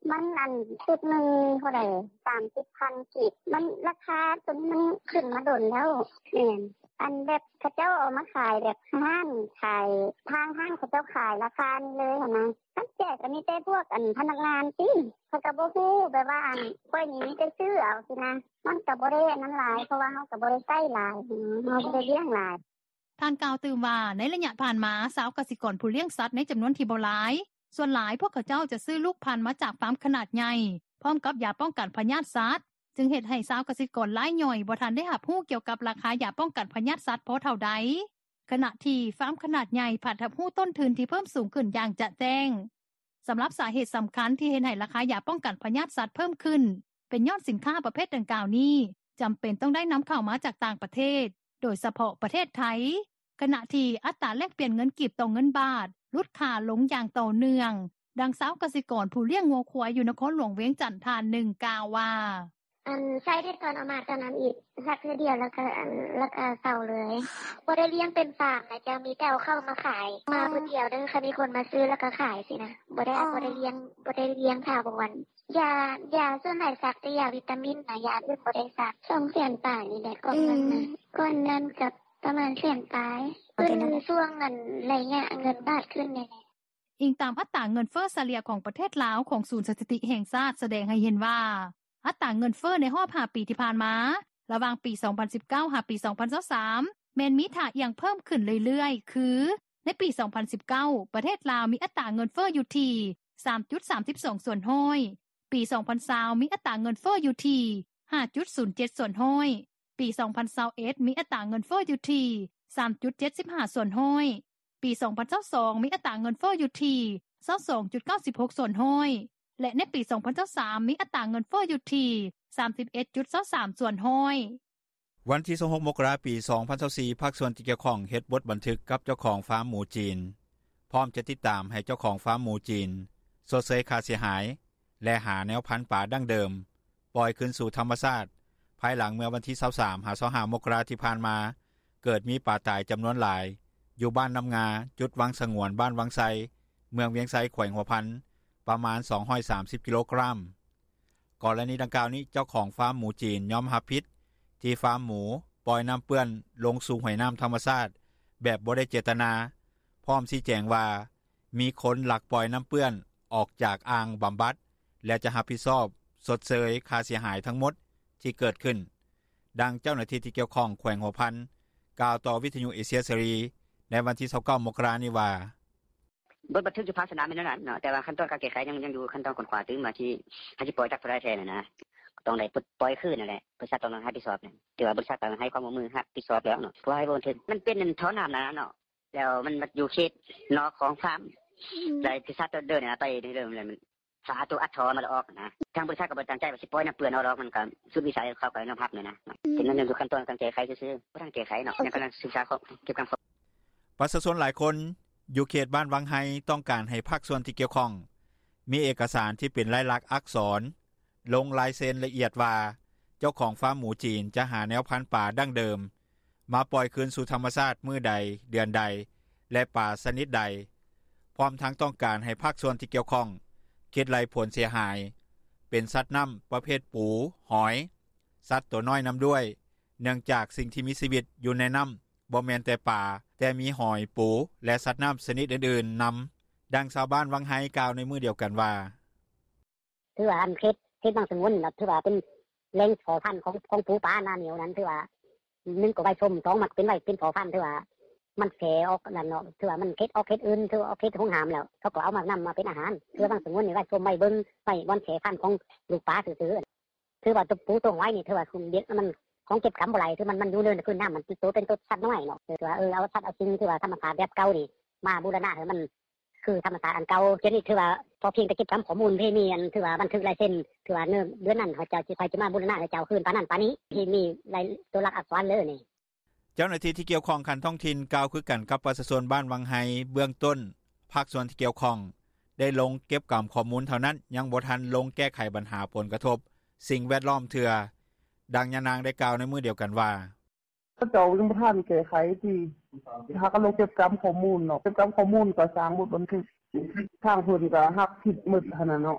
"ມັນອັນຊຸດໜຶ່ງເທົ່າໃດ ສາມສິບພັນກີບ ມັນລາຄາໂຕນີ້ມັນຂຶ້ນມາດົນແລ້ວ ແມ່ນ ອັນແບບເຂົາເຈົ້າເອົາມາຂາຍແບບຮ້ານຂາຍ ທາງຮ້ານເຂົາເຈົ້າຂາຍລາຄານີ້ເລີຍຫັ້ນນະ ຄັນແຈກກໍມີແຕ່ພວກອັນພະນັກງານຕິ ເຂົາກໍບໍ່ຮູ້ ແບບວ່າອັນຂ້ອຍນີ້ມີແຕ່ຊື້ເອົາຊີ້ນະ ມັນກໍບໍ່ໄດ້ອັນນັ້ນຫຼາຍ ເພາະວ່າເຮົາກໍບໍ່ໄດ້ໃຊ້ຫຼາຍ ເຮົາບໍ່ໄດ້ລ້ຽງຫຼາຍ." ທ່ານກ່າວຕື່ມວ່າ ໃນໄລຍະຜ່ານມາ ຊາວກະສິກອນຜູ້ລ້ຽງສັດໃນຈຳນວນທີ່ບໍ່ຫຼາຍ ສ່ວນຫຼາຍພວກເຂົາເຈົ້າຈະຊື້ລູກພັນມາຈາກຟາມຂະໜາດໃຫຍ່ ພ້ອມກັບຢາປ້ອງກັນພະຍາດສັດ ຈຶ່ງເຮັດໃຫ້ຊາວກະສິກອນລາຍຍ່ອຍບໍ່ທັນໄດ້ຮັບຮູ້ກ່ຽວກັບລາຄາຢາປ້ອງກັນພະຍາດສັດພໍເທົ່າໃດ ຂະນະທີ່ຟາມຂະໜາດໃຫຍ່ພັດຮັບຮູ້ຕົ້ນທຶນທີ່ເພີ່ມສູງຂຶ້ນຢ່າງຈະແຈ້ງ. ສຳລັບສາເຫດສຳຄັນທີ່ເຮັດໃຫ້ລາຄາຢາປ້ອງກັນພະຍາດສັດເພີ່ມຂຶ້ນ ເປັນຍ້ອນສິນຄ້າປະເພດດັ່ງກ່າວນີ້ ຈຳເປັນຕ້ອງໄດ້ນຳເຂົ້າມາຈາກຕ່າງປະເທດ ໂດຍສະເພາະປະເທດໄທ ຂະນະທີ່ອັດຕາແລກປ່ຽນເງິນກີບຕໍ່ເງິນບາດຫຼຸດຄ່າລົງຢ່າງຕໍ່ເນື່ອງ. ດັ່ງຊາວກະສິກອນຜູ້ລ້ຽງງົວຄວາຍຢູ່ນະຄອນຫຼວງວຽງຈັນທ່ານໜຶ່ງກ່າວວ່າ: "ອັນໃຊ້ແຕ່ຕອນເອົາມາຕອນນັ້ນອີກ ສັກເທື່ອດຽວແລ້ວກໍອັນ ແລ້ວກໍເຊົາເລີຍ ບໍ່ໄດ້ລ້ຽງເປັນຟາມນະເຈົ້າ ມີແຕ່ເອົາເຂົ້າມາຂາຍ ມາຜູ້ດຽວເດີ ຄັນມີຄົນມາຊື້ແລ້ວກໍຂາຍຊີ້ນະ ບໍ່ໄດ້ ບໍ່ໄດ້ລ້ຽງ ບໍ່ໄດ້ລ້ຽງຖາວອນ ຢາ ຢາສ່ວນຫຼາຍສັກແຕ່ຢາວິຕາມິນນະ ຢາອື່ນບໍ່ໄດ້ສັກ ສອງແສນປາຍນີ້ແຫຼະ ກ່ອນນັ້ນນະ ກ່ອນນັ້ນກໍປະມານແສນປາຍ ເປັນຊ່ວງອັນໄລຍະເງິນບາດຂຶ້ນນີ້ແຫຼະ." ອີງຕາມອັດຕາເງິນເຟີ້ສະເລ່ຍຂອງປະເທດລາວ ຂອງສູນສະຖິຕິແຫ່ງຊາດ ສະແດງໃຫ້ເຫັນວ່າ ອັດຕາເງິນເຟີ້ໃນຮອບຫ້າປີທີ່ຜ່ານມາ ລະຫວ່າງປີສອງພັນສິບເກົ້າ ຫາປີສອງພັນຊາວສາມ ແມ່ນມີທ່າອ່ຽງເພີ່ມຂຶ້ນເລື້ອຍໆ ຄື ໃນປີສອງພັນສິບເກົ້າ ປະເທດລາວມີອັດຕາເງິນເຟີ້ຢູ່ທີ່ ສາມຈຸດສາມສິບສອງສ່ວນຮ້ອຍ, ປີສອງພັນຊາວ ມີອັດຕາເງິນເຟີ້ຢູ່ທີ່ ຫ້າຈຸດສູນເຈັດສ່ວນຮ້ອຍ, ປີສອງພັນຊາວເອັດ ມີອັດຕາເງິນເຟີ້ຢູ່ທີ່ ສາມຈຸດເຈັດສິບຫ້າສ່ວນຮ້ອຍ, ປີສອງພັນຊາວສອງ ມີອັດຕາເງິນເຟີ້ຢູ່ທີ່ ຊາວສອງຈຸດເກົ້າສິບຫົກສ່ວນຮ້ອຍ ແລະ ໃນປີສອງພັນຊາວສາມ ມີອັດຕາເງິນເຟີ້ຢູ່ທີ່ ສາມສິບເອັດຈຸດຊາວສາມສ່ວນຮ້ອຍ. ວັນທີຊາວຫົກ ມົກກະລາ ປີສອງພັນຊາວສີ່ ພາກສ່ວນທີ່ກ່ຽວຂ້ອງເຮັດບົດບັນທຶກກັບເຈົ້າຂອງຟາມໝູຈີນ ພ້ອມຈະຕິດຕາມໃຫ້ເຈົ້າຂອງຟາມໝູຈີນ ຊົດເຊີຍຄ່າເສຍຫາຍ ແລະ ຫາແນວພັນປາດັ້ງເດີມ ປ່ອຍຄືນສູ່ທຳມະຊາດ. ພາຍຫຼັງເມື່ອວັນທີ 23-25 ມົກກະລາທີ່ຜ່ານມາ ເກີດມີປາຕາຍຈຳນວນຫຼາຍ ຢູ່ບ້ານນໍ້າງາ ຈຸດວັງສະຫງວນ ບ້ານວັງໄຊ ເມືອງວຽງໄຊ ແຂວງຫົວພັນ ປະມານ 230 ກິໂລກຣາມ. ກໍລະນີດັ່ງກ່າວນີ້ ເຈົ້າຂອງຟາມໝູຈີນຍອມຮັບຜິດ ທີ່ຟາມໝູປ່ອຍນໍ້າເປື້ອນລົງສູ່ຫ້ວຍນໍ້າທຳມະຊາດ ແບບບໍ່ໄດ້ເຈດຕະນາ ພ້ອມຊີ້ແຈງວ່າ ມີຄົນລັກປ່ອຍນໍ້າເປື້ອນອອກຈາກອ່າງບຳບັດ ແລະ ຈະຮັບຜິດຊອບຊົດເຊີຍຄ່າເສຍຫາຍທັງໝົດທີ່ເກີດຂຶ້ນ. ດັ່ງເຈົ້າໜ້າທີ່ທີ່ກ່ຽວຂ້ອງແຂວງຫົວພັນ ກ່າວຕໍ່ວິທຍຸເອເຊຍເສລີ ໃນວັນທີ 29 ມົກກະລານີ້ວ່າ: ບົດບັນທຶກຢູ່ພາກສະໜາມແມ່ນແນວນັ້ນເນາະ ແຕ່ວ່າຂັ້ນຕອນການແກ້ໄຂຍັງ ຍັງຢູ່ຂັ້ນຕອນຄົ້ນຄວ້າຕື່ມວ່າ ທີ່ເຮົາຊິປ່ອຍຈັກເທົ່າໃດແທ້ຫັ້ນນະ ກໍຕ້ອງໄດ້ປົດປ່ອຍຄືນຫັ້ນແຫຼະ ບໍລິສັດຕ້ອງຮັບຜິດຊອບ ຖືວ່າບໍລິສັດກໍໃຫ້ຄວາມຮ່ວມມືຮັບຜິດຊອບແລ້ວເນາະ ເພາະວ່າໃຫ້ບໍ່ບັນທຶກ ມັນເປັນທໍ່ນໍ້ານັ້ນເນາະ ແລ້ວມັນມາຢູ່ເຂດນອກຂອງຟາມ ອືມ ແລະ ບໍລິສັດເດີນໄປເດີ ແລ້ວມັນ ຖ້າເອົາໂຕອັດທໍ່ມາແລ້ວອອກນະ ທາງບໍລິສັດກໍບໍ່ໄດ້ຕັ້ງໃຈວ່າຊິປ່ອຍນໍ້າເປື້ອນເອົາດອກ ມັນກໍສຸດວິໄສເຂົາກໍຍອມຮັບແນວນະ ອືມ ເປັນເລື່ອງຢູ່ຂັ້ນຕອນການແກ້ໄຂຊື່ໆ ບໍ່ທັນແກ້ໄຂເນາະ ຍັງກຳລັງສຶກສາເກັບກຳຂໍ້. ປະຊາຊົນຫຼາຍຄົນຢູ່ເຂດບ້ານວັງໄຮ ຕ້ອງການໃຫ້ພາກສ່ວນທີ່ກ່ຽວຂ້ອງ ມີເອກະສານທີ່ເປັນລາຍລັກອັກສອນ ລົງລາຍເຊັນລະອຽດວ່າ ເຈົ້າຂອງຟາມໝູຈີນຈະຫາແນວພັນປາດັ້ງເດີມ ມາປ່ອຍຄືນສູ່ທຳມະຊາດມື້ໃດ, ເດືອນໃດ ແລະ ປາຊະນິດໃດ, ພ້ອມທັງຕ້ອງການໃຫ້ພາກສ່ວນທີ່ກ່ຽວຂ້ອງຄິດໄລ່ຜົນເສຍຫາຍ ເປັນສັດນໍ້າປະເພດປູ, ຫອຍ, ສັດຕົວນ້ອຍນຳດ້ວຍ ເນື່ອງຈາກສິ່ງທີ່ມີຊີວິດຢູ່ໃນນໍ້າ ບໍ່ແມ່ນແຕ່ປາ, ແຕ່ມີຫອຍ, ປູ ແລະ ສັດນໍ້າຊະນິດອື່ນໆນຳ. ດັ່ງຊາວບ້ານວັງໄຮກ່າວໃນມື້ດຽວກັນວ່າ: ຖືວ່າອັນເຂດ ເຂດບັງສະຫງວນນີ້ນະ ຖືວ່າເປັນແຫຼ່ງພໍພັນຂອງ ຂອງປູປາໜ້າໜຽວນັ້ນ ຖືວ່າ ໜຶ່ງກໍໄວ້ຊົມ ສອງມັນເປັນໄວ້ເປັນພໍພັນ ຖືວ່າມັນແຜ່ອອກນັ້ນເນາະ ຖືວ່າມັນເຂດອອກເຂດອື່ນ ຖືວ່າອອກເຂດຫົວໜາມແລ້ວ ເຂົາກໍເອົາມານຳມາເປັນອາຫານ ຖືວ່າບັງສະຫງວນນີ້ໄວ້ຊົມໄວ້ເບິ່ງ ໄວ້ບ່ອນແຜ່ພັນຂອງລູກປາຊື່ໆ ຖືວ່າໂຕປູໂຕຫອຍນີ້ ຖືວ່າມັນ ຂອງເກັບກຳບໍ່ໄດ້ ຄືມັນ ມັນຢູ່ເນີນພື້ນນໍ້າ ມັນໂຕເປັນໂຕສັດນ້ອຍເນາະ ຖືວ່າ ເອີ ເອົາສັດເອົາສິ່ງ ຖືວ່າທຳມະຊາດແບບເກົ່ານີ້ ມາບູລະນະໃຫ້ມັນ ຄືທຳມະຊາດອັນເກົ່າ ດຽວນີ້ຖືວ່າພໍພຽງແຕ່ເກັບກຳຂໍ້ມູນ ເພມີອັນຖືວ່າບັນທຶກລາຍເຊັນ ຖືວ່າເດືອນນັ້ນເຂົາເຈົ້າຊິ ຂ້ອຍຊິມາບູລະນະໃຫ້ເຈົ້າຄືນປານນັ້ນປານນີ້ ເພມີລາຍ ຕົວຫຼັກອັກສອນເລີຍນີ້. ເຈົ້າໜ້າທີ່ທີ່ກ່ຽວຂ້ອງຂັ້ນທ້ອງຖິ່ນກ່າວຄືກັນກັບປະຊາຊົນບ້ານວັງໄຮ ເບື້ອງຕົ້ນພາກສ່ວນທີ່ກ່ຽວຂ້ອງໄດ້ລົງເກັບກຳຂໍ້ມູນເທົ່ານັ້ນ ຍັງບໍ່ທັນລົງແກ້ໄຂບັນຫາຜົນກະທົບສິ່ງແວດລ້ອມເທື່ອ. ດັ່ງຍານາງໄດ້ກ່າວໃນມື້ດຽວກັນວ່າ: ເຂົາເຈົ້າຍັງບໍ່ທັນແກ້ໄຂຕິ ຫາກະລົງເກັບກຳຂໍ້ມູນເນາະ ເກັບກຳຂໍ້ມູນກໍສ້າງບົດບັນທຶກ ທາງເພິ່ນກໍຮັບຜິດໝົດຫັ້ນນະເນາະ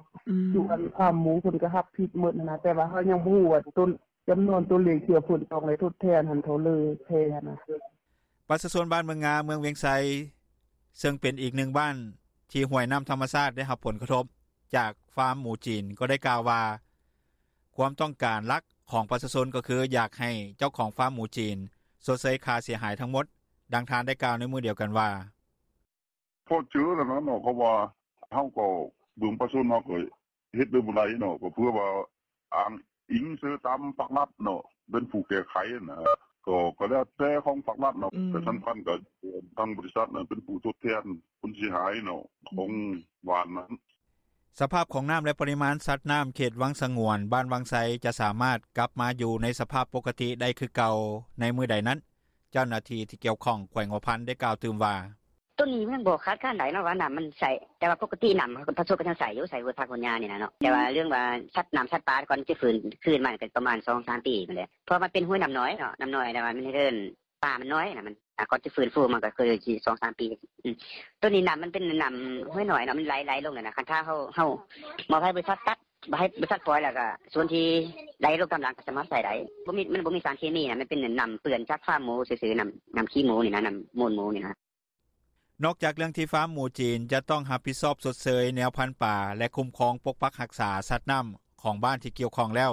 ຢູ່ອັນຟາມໝູເພິ່ນກໍຮັບຜິດໝົດຫັ້ນນະ ແຕ່ວ່າເຮົາຍັງບໍ່ຮູ້ວ່າຕົ້ນ ຈຳນວນຕົວເລກທີ່ວ່າເພິ່ນຕ້ອງໄດ້ທົດແທນຫັ້ນເທົ່າເລີແທ້ຫັ້ນນະ. ປະຊາຊົນບ້ານເມືອງງາ ເມືອງວຽງໄຊ ເຊິ່ງເປັນອີກໜຶ່ງບ້ານທີ່ຫ້ວຍນໍ້າທຳມະຊາດໄດ້ຮັບຜົນກະທົບຈາກຟາມໝູຈີນ ກໍໄດ້ກ່າວວ່າ ຄວາມຕ້ອງການຫຼັກຂອງປະຊາຊົນກໍຄືຢາກໃຫ້ເຈົ້າຂອງຟາມໝູຈີນຊົດເຊີຍຄ່າເສຍຫາຍທັງໝົດ. ດັ່ງທ່ານໄດ້ກ່າວໃນມື້ດຽວກັນວ່າ: ພໍເຈີແລ້ວນະເນາະ ເພາະວ່າເຮົາກໍເບິ່ງປະຊາຊົນເຮົາກໍເຮັດໄດ້ບໍ່ໄດ້ເນາະ ກໍເພື່ອວ່າອ້າງອີງເຊີຕາມພາກລັດເນາະ ເປັນຜູ້ແກ້ໄຂນະ ກໍ ກໍແລ້ວແຕ່ຂອງພາກລັດເນາະ ແຕ່ສຳຄັນກໍທາງບໍລິສັດນັ້ນເປັນຜູ້ທົດແທນຜົນເສຍຫາຍເນາະ ຂອງບ້ານນັ້ນ. ສະພາບຂອງນໍ້າ ແລະ ປະລິມານສັດນໍ້າເຂດວັງສະຫງວນ ບ້ານວັງໄຊ ຈະສາມາດກັບມາຢູ່ໃນສະພາບປົກກະຕິໄດ້ຄືເກົ່າໃນມື້ໃດນັ້ນ ເຈົ້າໜ້າທີ່ທີ່ກ່ຽວຂ້ອງແຂວງຫົວພັນໄດ້ກ່າວຕື່ມວ່າ: ໂຕນີ້ມັນຍັງບໍ່ຄາດຄານໄດ້ເນາະວ່ານໍ້າມັນໃສ ແຕ່ວ່າປົກກະຕິນໍ້າເຮົາກໍປະສົບກັນຍັງໃສຢູ່ ໃສຫົວຜັກຫົວຫຍ້ານີ້ນະເນາະ ແຕ່ວ່າເລື່ອງວ່າສັດນໍ້າສັດປາກ່ອນຈະຟື້ນຄືນມາກໍປະມານສອງສາມປີພຸ້ນແຫຼະ ເພາະວ່າມັນເປັນຫ້ວຍນໍ້ານ້ອຍເນາະ ນໍ້ານ້ອຍ ແຕ່ວ່າມັນເດີນ ປາມັນນ້ອຍນະ ມັນ ອ່າ ກ່ອນຈະຟື້ນຟູມັນກໍຄືຊິສອງສາມປີ. ອືມ ໂຕນີ້ນຳມັນເປັນນຳຫ້ວຍນ້ອຍເນາະ ມັນໄຫຼ ໄຫຼລົງແລ້ວນະ ຄັນຖ້າເຮົາ ເຮົາມອບໃຫ້ບໍລິສັດຕັດ ໃຫ້ບໍລິສັດປ່ອຍ ແລ້ວກໍສ່ວນທີ່ໄຫຼລົງຕາມຫຼັງກໍສາມາດໃຊ້ໄດ້ ບໍ່ມີ ມັນບໍ່ມີສານເຄມີນະ ມັນເປັນນຳເປື້ອນຈາກຟາມໝູຊື່ໆ ນຳ ນຳຂີ້ໝູນີ້ນະ ນຳມູນໝູນີ້ນະ. ນອກຈາກເລື່ອງທີ່ຟາມໝູຈີນຈະຕ້ອງຮັບຜິດຊອບຊົດເຊີຍແນວພັນປາ ແລະ ຄຸ້ມຄອງປົກປັກຮັກສາສັດນໍ້າຂອງບ້ານທີ່ກ່ຽວຂ້ອງແລ້ວ,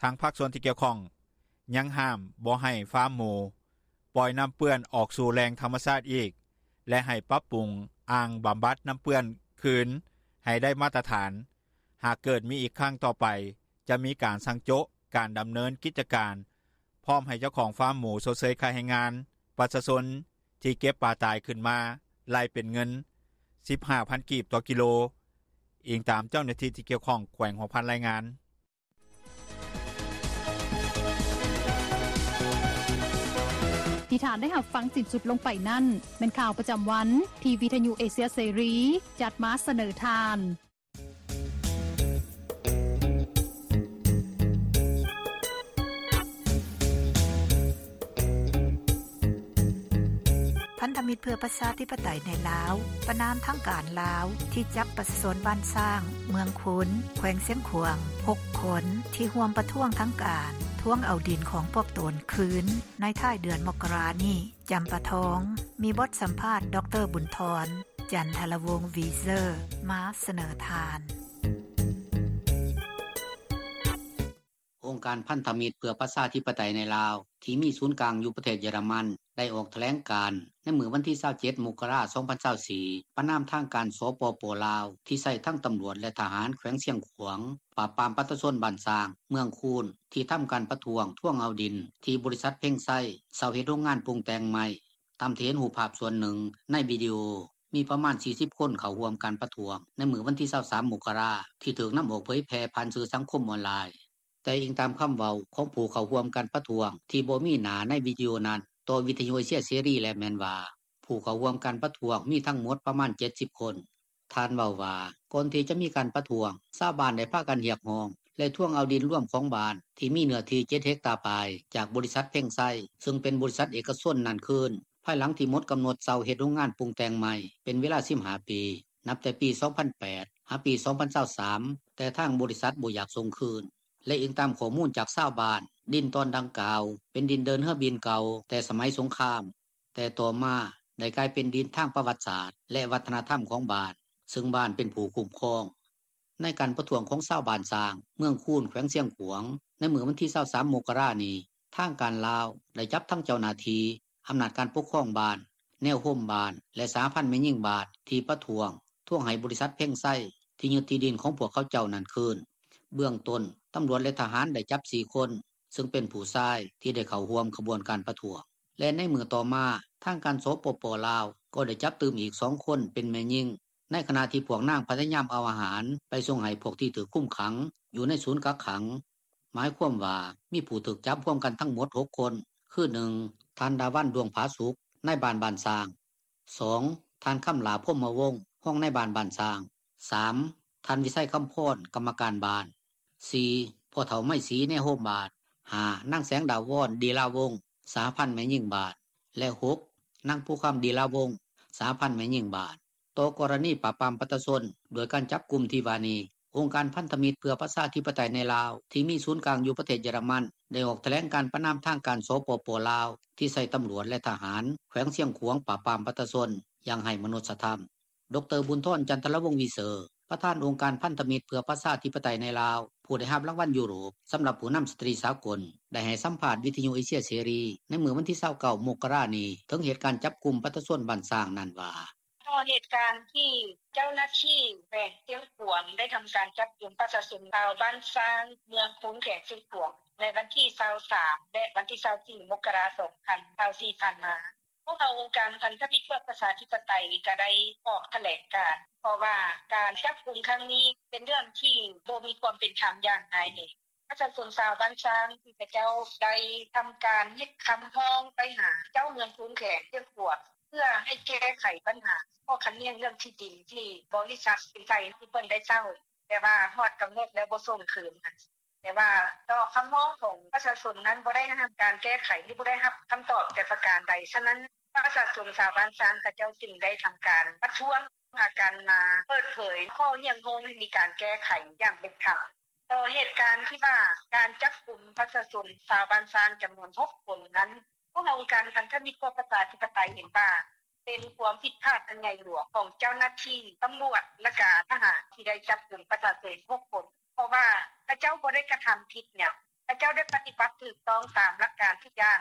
ທາງພາກສ່ວນທີ່ກ່ຽວຂ້ອງຍັງຫ້າມບໍ່ໃຫ້ຟາມໝູປ່ອຍນໍ້າເປື້ອນອອກສູ່ແຫຼ່ງທຳມະຊາດອີກ ແລະ ໃຫ້ປັບປຸງອ່າງບຳບັດນໍ້າເປື້ອນຄືນໃຫ້ໄດ້ມາດຕະຖານ. ຫາກເກີດມີອີກຄັ້ງຕໍ່ໄປ ຈະມີການສັ່ງໂຈະການດຳເນີນກິດຈະການ ພ້ອມໃຫ້ເຈົ້າຂອງຟາມໝູຊົດເຊີຍຄ່າແຮງງານ, ປະຊາຊົນທີ່ເກັບປາຕາຍຂຶ້ນມາໄລ່ເປັນເງິນສິບຫ້າພັນກີບຕໍ່ກິໂລ, ອີງຕາມເຈົ້າໜ້າທີ່ທີ່ກ່ຽວຂ້ອງແຂວງຫົວພັນລາຍງານ. ທີ່ທ່ານໄດ້ຮັບຟັງສິ້ນສຸດລົງໄປນັ້ນ ແມ່ນຂ່າວປະຈຳວັນທີ່ວິທະຍຸເອເຊຍເສລີຈັດມາສະເໜີທ່ານ. ທະມິດເພື່ອປະຊາທິປະໄຕໃນລາວ ປະນາມທາງການລາວ ທີ່ຈັບປະຊາຊົນບ້ານຊ້າງ ເມືອງຄູນ ແຂວງຊຽງຂວາງ ຫົກຄົນ ທີ່ຮ່ວມປະທ້ວງທາງການ ທວງເອົາດິນຂອງພວກຕົນຄືນ ໃນທ້າຍເດືອນມົກກະລານີ້. ຈຳປາທອງ ມີບົດສຳພາດ ດຣ. ບຸນທອນ ຈັນທະລະວົງ ວີເຊີ ມາສະເໜີທ່ານ. ອົງການພັນທະມິດເພື່ອປະຊາທິປະໄຕໃນລາວ ທີ່ມີສູນກາງຢູ່ປະເທດເຢຍລະມັນ ໄດ້ອອກຖະແຫຼງການໃນມື້ວັນທີຊາວເຈັດ ມົກກະລາ ສອງພັນຊາວສີ່ ປະນາມທາງການ ສປປ ລາວ ທີ່ໃຊ້ທັງຕຳຫຼວດ ແລະ ທະຫານແຂວງຊຽງຂວາງ ປາບປາມປະຊາຊົນບ້ານຊ້າງ ເມືອງຄູນ ທີ່ທຳການປະທ້ວງທວງເອົາດິນ ທີ່ບໍລິສັດເພັງໄຊເຊົ່າເຮັດໂຮງງານປຸງແຕ່ງໄມ້. ຕາມທີ່ເຫັນຮູບພາບສ່ວນໜຶ່ງໃນວິດີໂອ ມີປະມານສີ່ສິບຄົນເຂົ້າຮ່ວມການປະທ້ວງໃນມື້ວັນທີຊາວສາມ ມົກກະລາ ທີ່ຖືກນຳອອກເຜີຍແຜ່ຜ່ານສື່ສັງຄົມອອນລາຍ. ແຕ່ອີງຕາມຄຳເວົ້າຂອງຜູ້ເຂົ້າຮ່ວມການປະທ້ວງທີ່ບໍ່ມີໜ້າໃນວິດີໂອນັ້ນ ຕໍ່ວິທະຍຸເອເຊຍເສລີແລ້ວແມ່ນວ່າ ຜູ້ເຂົ້າຮ່ວມການປະທ້ວງມີທັງໝົດປະມານເຈັດສິບຄົນ. ທ່ານເວົ້າວ່າ ກ່ອນທີ່ຈະມີການປະທ້ວງ ຊາວບ້ານໄດ້ພາກັນຮຽກຮ້ອງ ແລະ ທວງເອົາດິນລວມຂອງບ້ານ ທີ່ມີເນື້ອທີ່ເຈັດເຮັກຕາປາຍ ຈາກບໍລິສັດເພັງໄຊ ຊຶ່ງເປັນບໍລິສັດເອກະຊົນນັ້ນຄືນ ພາຍຫຼັງທີ່ໝົດກຳນົດເຊົ່າເຮັດໂຮງງານປຸງແຕ່ງໄມ້ເປັນເວລາສິບຫ້າປີ ນັບແຕ່ປີສອງພັນແປດ ຫາປີສອງພັນຊາວສາມ ແຕ່ທາງບໍລິສັດບໍ່ຢາກສົ່ງຄືນ. ແລະ ອີງຕາມຂໍ້ມູນຈາກຊາວບ້ານ, ດິນຕອນດັ່ງກ່າວເປັນດິນເດີນເຮືອບິນເກົ່າແຕ່ສະໄໝສົງຄາມ, ແຕ່ຕໍ່ມາໄດ້ກາຍເປັນດິນທາງປະຫວັດສາດ ແລະ ວັດທະນະທຳຂອງບ້ານ, ຊຶ່ງບ້ານເປັນຜູ້ຄຸ້ມຄອງ. ໃນການປະທ້ວງຂອງຊາວບ້ານຊ້າງ ເມືອງຄູນ ແຂວງຊຽງຂວາງ ໃນມື້ວັນທີຊາວສາມ ມົກກະລານີ້, ທາງການລາວໄດ້ຈັບທັງເຈົ້າໜ້າທີ່, ອຳນາດການປົກຄອງບ້ານ, ແນວໂຮມບ້ານ ແລະ ສະຫະພັນແມ່ຍິງບ້ານ ທີ່ປະທ້ວງ ທວງໃຫ້ບໍລິສັດເພັງໄຊ ທີ່ຍຶດທີ່ດິນຂອງພວກເຂົາເຈົ້ານັ້ນຄືນ. ເບື້ອງຕົ້ນ, ຕຳຫຼວດ ແລະ ທະຫານໄດ້ຈັບສີ່ຄົນ, ຊຶ່ງເປັນຜູ້ຊາຍທີ່ໄດ້ເຂົ້າຮ່ວມຂະບວນການປະທ້ວງ. ແລະ ໃນມື້ຕໍ່ມາ, ທາງການ ສປປ ລາວ ກໍໄດ້ຈັບຕື່ມອີກສອງຄົນເປັນແມ່ຍິງ, ໃນຂະນະທີ່ພວກນາງພະຍາຍາມເອົາອາຫານໄປສົ່ງໃຫ້ພວກທີ່ຖືກຄຸມຂັງຢູ່ໃນສູນກັກຂັງ. ໝາຍຄວາມວ່າມີຜູ້ຖືກຈັບຮວມກັນທັງໝົດຫົກຄົນ, ຄື ໜຶ່ງ ທ່ານ ດາວັນ ດວງຜາສຸກ, ນາຍບ້ານບ້ານຊ້າງ, ສອງ ທ່ານ ຄຳຫຼ້າ ພົມມະວົງ, ຮອງນາຍບ້ານບ້ານຊ້າງ, ສາມ ທ່ານ ວິໄຊ ຄຳພອນ, ກຳມະການບ້ານ, ສີ່ ພໍ່ເຖົ້າ ໄມສີ ນາຍໂຮມບ້ານ, ຫ້າ ນາງ ແສງດາວອນ ດີລາວົງ, ສະຫະພັນແມ່ຍິງບ້ານ, ແລະ ຫົກ ນາງ ພູຄຳ ດີລາວົງ, ສະຫະພັນແມ່ຍິງບ້ານ. ຕໍ່ກໍລະນີປາບປາມປະຊາຊົນດ້ວຍການຈັບກຸມທີ່ວ່ານີ້, ອົງການພັນທະມິດເພື່ອປະຊາທິປະໄຕໃນລາວ ທີ່ມີສູນກາງຢູ່ປະເທດເຢຍລະມັນ ໄດ້ອອກຖະແຫຼງການປະນາມທາງການ ສປປ ລາວ ທີ່ໃຊ້ຕຳຫຼວດ ແລະ ທະຫານແຂວງຊຽງຂວາງປາບປາມປະຊາຊົນຢ່າງໄຮ້ມະນຸດສະທຳ. ດຣ. ບຸນທອນ ຈັນທະລະວົງ ວີເຊີ ປະທານອົງການພັນທະມິດເພື່ອປະຊາທິປະໄຕໃນລາວ ຜູ້ໄດ້ຮັບລາງວັນຢູໂຣບສຳລັບຜູ້ນຳສະຕຣີສາກົນ ໄດ້ໃຫ້ສຳພາດວິທະຍຸເອເຊຍເສລີໃນມື້ວັນທີຊາວເກົ້າ ມົກກະລານີ້ ເຖິງເຫດການຈັບກຸມປະຊາຊົນບ້ານຊ້າງນັ້ນວ່າ: ຕໍ່ເຫດການທີ່ເຈົ້າໜ້າທີ່ແຂວງຊຽງຂວາງໄດ້ທຳການຈັບກຸມປະຊາຊົນຊາວບ້ານຊ້າງ ເມືອງຄູນ ແຂວງຊຽງຂວາງ ໃນວັນທີຊາວສາມ ແລະ ວັນທີຊາວສີ່ ມົກກະລາ ສອງພັນຊາວສີ່ ຜ່ານມາ, ພວກເຮົາອົງການພັນທະມິດເພື່ອປະຊາທິປະໄຕກໍໄດ້ອອກຖະແຫຼງການ ເພາະວ່າການຈັບກຸມຄັ້ງນີ້ເປັນເລື່ອງທີ່ບໍ່ມີຄວາມເປັນທຳຢ່າງຮ້າຍແຮງ. ປະຊາຊົນຊາວບ້ານຊ້າງທີ່ເຂົາເຈົ້າໄດ້ທຳການເຮັດຄຳຮ້ອງໄປຫາເຈົ້າເມືອງຄູນ ແຂວງຊຽງຂວາງ ເພື່ອໃຫ້ແກ້ໄຂບັນຫາຂໍ້ຂັດແຍ່ງເລື່ອງທີ່ດິນທີ່ບໍລິສັດເພັງໄຊທີ່ເພິ່ນໄດ້ເຊົ່າ, ແຕ່ວ່າຮອດກຳນົດແລ້ວບໍ່ສົ່ງຄືນ. ແຕ່ວ່າຕໍ່ຄຳຮ້ອງຂອງປະຊາຊົນນັ້ນບໍ່ໄດ້ຮັບການແກ້ໄຂ ຫຼື ບໍ່ໄດ້ຮັບຄຳຕອບແຕ່ປະການໃດ. ສະນັ້ນ ປະຊາຊົນຊາວບ້ານຊ້າງເຂົາເຈົ້າຈຶ່ງໄດ້ທຳການປະທ້ວງ ພາກັນມາເປີດເຜີຍຂໍ້ຮຽກຮ້ອງໃຫ້ມີການແກ້ໄຂຢ່າງເປັນທຳ. ຕໍ່ເຫດການທີ່ວ່າການຈັບກຸມປະຊາຊົນຊາວບ້ານຊ້າງຈຳນວນຫົກຄົນນັ້ນ, ພວກເຮົາອົງການພັນທະມິດເພື່ອປະຊາທິປະໄຕເຫັນວ່າ ເປັນຄວາມຜິດພາດອັນໃຫຍ່ຫຼວງຂອງເຈົ້າໜ້າທີ່ຕຳຫຼວດ ແລະ ກະທະຫານທີ່ໄດ້ຈັບກຸມປະຊາຊົນຫົກຄົນ, ເພາະວ່າເຂົາເຈົ້າບໍ່ໄດ້ກະທຳຜິດຫຍັງ, ເຂົາເຈົ້າໄດ້ປະຕິບັດຖືກຕ້ອງຕາມຫຼັກການທຸກຢ່າງ.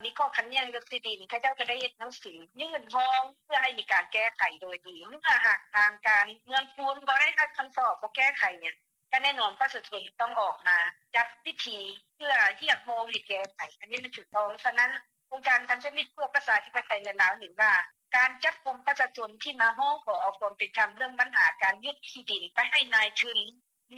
ມີຂໍ້ຂັດແຍ່ງເລື່ອງທີ່ດິນ, ເຂົາເຈົ້າກໍໄດ້ເຮັດໜັງສືຍື່ນຮ້ອງເພື່ອໃຫ້ມີການແກ້ໄຂໂດຍດີ. ເມື່ອຫາກທາງການເມືອງຄູນບໍ່ໄດ້ຮັບຄຳຕອບ, ບໍ່ແກ້ໄຂຫຍັງ, ກໍແນ່ນອນປະຊາຊົນຕ້ອງອອກມາຈັດພິທີເພື່ອຮຽກຮ້ອງໃຫ້ແກ້ໄຂ, ອັນນີ້ມັນຖືກຕ້ອງ. ສະນັ້ນ ອົງການພັນທະມິດເພື່ອປະຊາທິປະໄຕໃນລາວເຫັນວ່າ ການຈັບກຸມປະຊາຊົນທີ່ມາຮ້ອງຂໍເອົາຄວາມເປັນທຳເລື່ອງບັນຫາການຍຶດທີ່ດິນໄປໃຫ້ນາຍທຶນ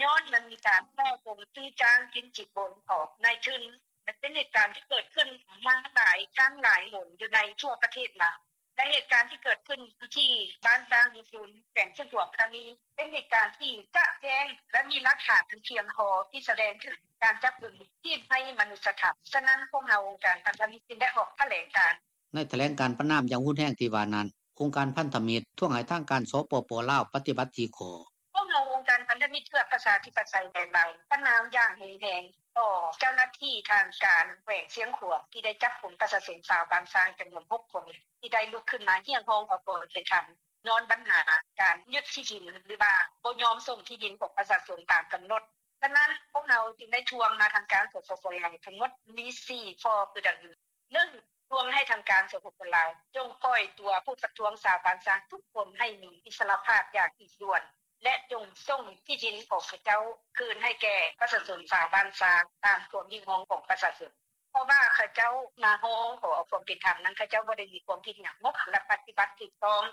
ຍ້ອນມັນມີການສໍ້ໂກງຊື້ຈ້າງກິນສິນບົນຂອງນາຍທຶນ ແລະ ເປັນເຫດການທີ່ເກີດຂຶ້ນມາຫຼາຍຄັ້ງຫຼາຍຫົນຢູ່ໃນທົ່ວປະເທດລາວ. ແລະ ເຫດການທີ່ເກີດຂຶ້ນທີ່ບ້ານຊ້າງເມືອງຄູນ ແຂວງຊຽງຂວາງຄັ້ງນີ້ ເປັນເຫດການທີ່ຈະແຈ້ງ ແລະ ມີຫຼັກຖານອັນພຽງພໍທີ່ສະແດງເຖິງການຈັບກຸມທີ່ໄຮ້ມະນຸດສະທຳ. ສະນັ້ນ ພວກເຮົາອົງການພັນທະມິດຈຶ່ງໄດ້ອອກຖະແຫຼງການ ໃນຖະແຫຼງການປະນາມຢ່າງຮຸນແຮງທີ່ວ່ານັ້ນ, ອົງການພັນທະມິດ ທວງໃຫ້ທາງການ ສປປ ລາວ ປະຕິບັດ ສີ່ຂໍ້. ພວກເຮົາ ອົງການພັນທະມິດເພື່ອປະຊາທິປະໄຕ ແລະ ລາວ ປະນາມຢ່າງຮຸນແຮງຕໍ່ເຈົ້າໜ້າທີ່ທາງການແຂວງຊຽງຂວາງ ທີ່ໄດ້ຈັບກຸມປະຊາຊົນຊາວບ້ານຊ້າງຈຳນວນ ຫົກ ຄົນ ທີ່ໄດ້ລຸກຂຶ້ນມາຮຽກຮ້ອງຂໍຄວາມເປັນທຳ ຍ້ອນບັນຫາການຍຶດທີ່ດິນ ຫຼືວ່າບໍ່ຍອມສົ່ງທີ່ດິນຂອງປະຊາຊົນຕາມກຳນົດ. ສະນັ້ນ ພວກເຮົາຈຶ່ງໄດ້ທວງມາທາງການ ສປປ ລາວ ທັງໝົດມີ ສີ່ ຂໍ້ຄືດັ່ງນີ້: ໜຶ່ງ ທວງໃຫ້ທາງການ ສປປ ລາວ ຈົ່ງປ່ອຍຕົວຜູ້ປະທ້ວງຊາວບ້ານຊ້າງທຸກຄົນໃຫ້ມີອິດສະຫຼະພາບຢ່າງຮີບດ່ວນ ແລະ ຈົ່ງສົ່ງທີ່ດິນຂອງເຂົາເຈົ້າຄືນໃຫ້ແກ່ປະຊາຊົນຊາວບ້ານຊ້າງຕາມຄວາມຮຽກຮ້ອງຂອງປະຊາຊົນ, ເພາະວ່າເຂົາເຈົ້າມາຮ້ອງຂໍເອົາຄວາມເປັນທຳນັ້ນ ເຂົາເຈົ້າບໍ່ໄດ້ມີຄວາມຜິດຫຍັງ ແລະ ປະຕິບັດຖືກຕ້ອງ.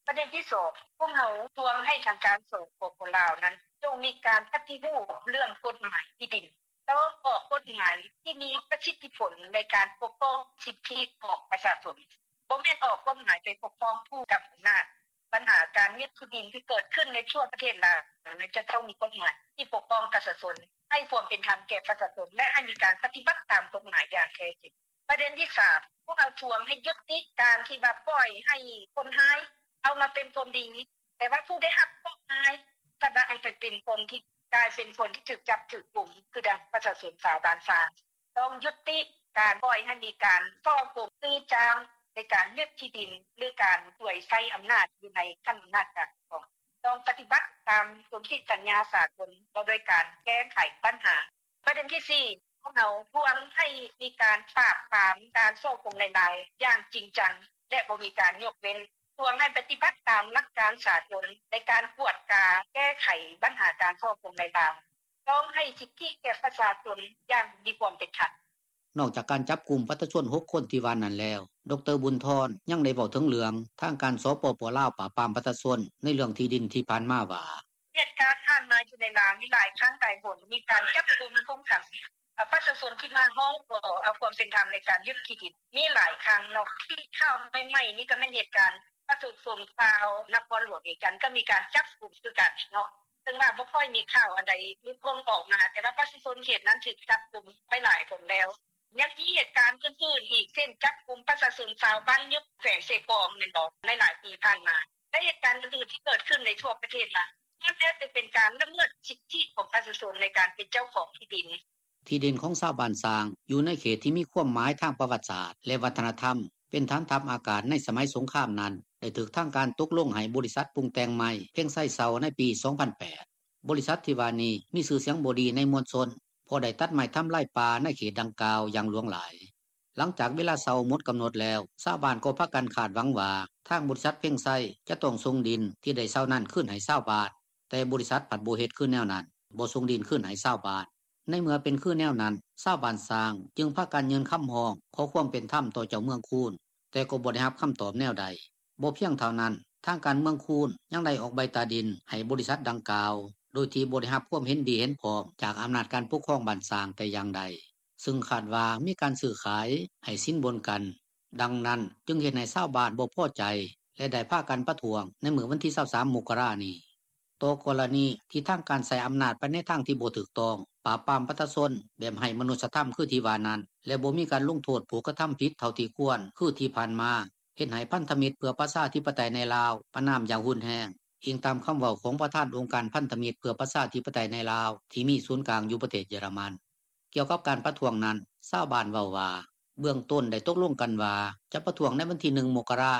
ປະເດັນທີສອງ ພວກເຮົາທວງໃຫ້ທາງການ ສປປ ລາວ ນັ້ນ ຈົ່ງມີການປະຕິຮູບເລື່ອງກົດໝາຍທີ່ດິນ, ຕ້ອງອອກກົດໝາຍທີ່ມີປະສິດທິຜົນໃນການປົກປ້ອງສິດທິຂອງປະຊາຊົນ, ບໍ່ແມ່ນອອກກົດໝາຍໄປປົກປ້ອງຜູ້ກຳອຳນາດ. ບັນຫາການຍຶດທີ່ດິນທີ່ເກີດຂຶ້ນໃນທົ່ວປະເທດລາວ ຈະຕ້ອງມີກົດໝາຍທີ່ປົກປ້ອງປະຊາຊົນ, ໃຫ້ຄວາມເປັນທຳແກ່ປະຊາຊົນ ແລະ ໃຫ້ມີການປະຕິບັດຕາມກົດໝາຍຢ່າງແທ້ຈິງ. ປະເດັນທີສາມ ພວກເຮົາທວງໃຫ້ຍຸຕິການທີ່ວ່າປ່ອຍໃຫ້ຄົນຮ້າຍເອົາມາເປັນຄົນດີ, ແຕ່ວ່າຜູ້ໄດ້ຮັບເຄາະຮ້າຍ ກັບວ່າໃຫ້ໄປເປັນຄົນທີ່ ກາຍເປັນຄົນທີ່ຖືກຈັບຖືກກຸມ ຄືດັ່ງປະຊາຊົນຊາວບ້ານຊ້າງ. ຕ້ອງຍຸຕິການປ່ອຍໃຫ້ມີການສໍ້ໂກງຊື້ຈ້າງ ໃນການຍຶດທີ່ດິນ ຫຼື ການສວຍໃຊ້ອຳນາດຢູ່ໃນຂັ້ນອຳນາດການປົກຄອງ. ຕ້ອງປະຕິບັດຕາມສົນທິສັນຍາສາກົນ ວ່າດ້ວຍການແກ້ໄຂບັນຫາ. ປະເດັນທີສີ່ ພວກເຮົາທວງໃຫ້ມີການປາບປາມການສໍ້ໂກງລາຍໄດ້ຢ່າງຈິງຈັງ ແລະ ບໍ່ມີການຍົກເວັ້ນ, ທວງໃຫ້ປະຕິບັດຕາມຫຼັກການສາກົນໃນການກວດກາແກ້ໄຂບັນຫາການສໍ້ໂກງລາຍໄດ້, ຕ້ອງໃຫ້ສິດທິແກ່ປະຊາຊົນຢ່າງມີຄວາມເປັນທຳ. ນອກຈາກການຈັບກຸມປະຊາຊົນ ຫົກ ຄົນທີ່ວ່ານັ້ນແລ້ວ, ດຣ. ບຸນທອນ ຍັງໄດ້ເວົ້າເຖິງເລື່ອງທາງການ ສປປ ລາວ ປາບປາມປະຊາຊົນໃນເລື່ອງທີ່ດິນທີ່ຜ່ານມາວ່າ: ເຫດການຜ່ານມາຢູ່ໃນລາວມີຫຼາຍຄັ້ງຫຼາຍຫົນ ມີການຈັບກຸມຄຸມຂັງ ເອີ ປະຊາຊົນທີ່ມາຮ້ອງຂໍເອົາຄວາມເປັນທຳໃນການຍຶດທີ່ດິນ ມີຫຼາຍຄັ້ງເນາະ. ທີ່ຂ່າວໃໝ່ໆນີ້ກໍແມ່ນເຫດການປະຊາຊົນຊາວນະຄອນຫຼວງວຽງຈັນ ກໍມີການຈັບກຸມຄືກັນເນາະ, ເຊິ່ງວ່າບໍ່ຄ່ອຍມີຂ່າວອັນໃດລຸດພົ້ນອອກມາ, ແຕ່ວ່າປະຊາຊົນເຂດນັ້ນຖືກຈັບກຸມໄປຫຼາຍຄົນແລ້ວ. ຍັງມີເຫດການອື່ນໆອີກ ເຊັ່ນ ຈັບກຸມປະຊາຊົນຊາວບ້ານຍຸບ ແຂວງເຊກອງ ແມ່ນບໍ່ ໃນຫຼາຍປີຜ່ານມາ ແລະ ເຫດການອື່ນໆທີ່ເກີດຂຶ້ນໃນທົ່ວປະເທດລາວ ລ້ວນແລ້ວແຕ່ເປັນການລະເມີດສິດທິຂອງປະຊາຊົນໃນການເປັນເຈົ້າຂອງທີ່ດິນ. ທີ່ດິນຂອງຊາວບ້ານຊ້າງ ຢູ່ໃນເຂດທີ່ມີຄວາມໝາຍທາງປະຫວັດສາດ ແລະ ວັດທະນະທຳ ເປັນຖານທັບອາກາດໃນສະໄໝສົງຄາມນັ້ນ ໄດ້ຖືກທາງການຕົກລົງໃຫ້ບໍລິສັດປຸງແຕ່ງໄມ້ ເພັງໄຊ ເຊົ່າໃນປີ ສອງພັນແປດ. ບໍລິສັດທີ່ວ່ານີ້ມີຊື່ສຽງບໍ່ດີໃນມວນຊົນ ເພາະໄດ້ຕັດໄມ້ທຳລາຍປ່າໃນເຂດດັ່ງກ່າວຢ່າງຫຼວງຫຼາຍ. ຫຼັງຈາກເວລາເຊົ່າໝົດກຳນົດແລ້ວ, ຊາວບ້ານກໍພາກັນຄາດຫວັງວ່າ ທາງບໍລິສັດເພັງໄຊຈະຕ້ອງສົ່ງດິນທີ່ໄດ້ເຊົ່ານັ້ນຄືນໃຫ້ຊາວບ້ານ, ແຕ່ບໍລິສັດພັດບໍ່ເຮັດຄືແນວນັ້ນ, ບໍ່ສົ່ງດິນຄືນໃຫ້ຊາວບ້ານ. ໃນເມື່ອເປັນຄືແນວນັ້ນ, ຊາວບ້ານຊ້າງຈຶ່ງພາກັນຍື່ນຄຳຮ້ອງຂໍຄວາມເປັນທຳຕໍ່ເຈົ້າເມືອງຄູນ, ແຕ່ກໍບໍ່ໄດ້ຮັບຄຳຕອບແນວໃດ. ບໍ່ພຽງເທົ່ານັ້ນ, ທາງການເມືອງຄູນຍັງໄດ້ອອກໃບຕາດິນໃຫ້ບໍລິສັດດັ່ງກ່າວ ໂດຍທີ່ບໍ່ໄດ້ຮັບຄວາມເຫັນດີເຫັນພ້ອມຈາກອຳນາດການປົກຄອງບ້ານຊ້າງແຕ່ຢ່າງໃດ, ຊຶ່ງຄາດວ່າມີການຊື້ຂາຍ, ໃຫ້ສິນບົນກັນ. ດັ່ງນັ້ນຈຶ່ງເຮັດໃຫ້ຊາວບ້ານບໍ່ພໍໃຈ ແລະ ໄດ້ພາກັນປະທ້ວງໃນມື້ວັນທີ ຊາວສາມ ມົກກະລານີ້. ຕໍ່ກໍລະນີທີ່ທາງການໃຊ້ອຳນາດໄປໃນທາງທີ່ບໍ່ຖືກຕ້ອງ, ປາບປາມປະຊາຊົນແບບໄຮ້ມະນຸດສະທຳຄືທີ່ວ່ານັ້ນ ແລະ ບໍ່ມີການລົງໂທດຜູ້ກະທຳຜິດເທົ່າທີ່ຄວນຄືທີ່ຜ່ານມາ, ເຮັດໃຫ້ພັນທະມິດເພື່ອປະຊາທິປະໄຕໃນລາວປະນາມຢ່າງຮຸນແຮງ, ອີງຕາມຄຳເວົ້າຂອງປະທານອົງການພັນທະມິດເພື່ອປະຊາທິປະໄຕໃນລາວ ທີ່ມີສູນກາງຢູ່ປະເທດເຢຍລະມັນ. ກ່ຽວກັບການປະທ້ວງນັ້ນ, ຊາວບ້ານເວົ້າວ່າ ເບື້ອງຕົ້ນໄດ້ຕົກລົງກັນວ່າຈະປະທ້ວງໃນວັນທີ ໜຶ່ງ ມົກກະລາ,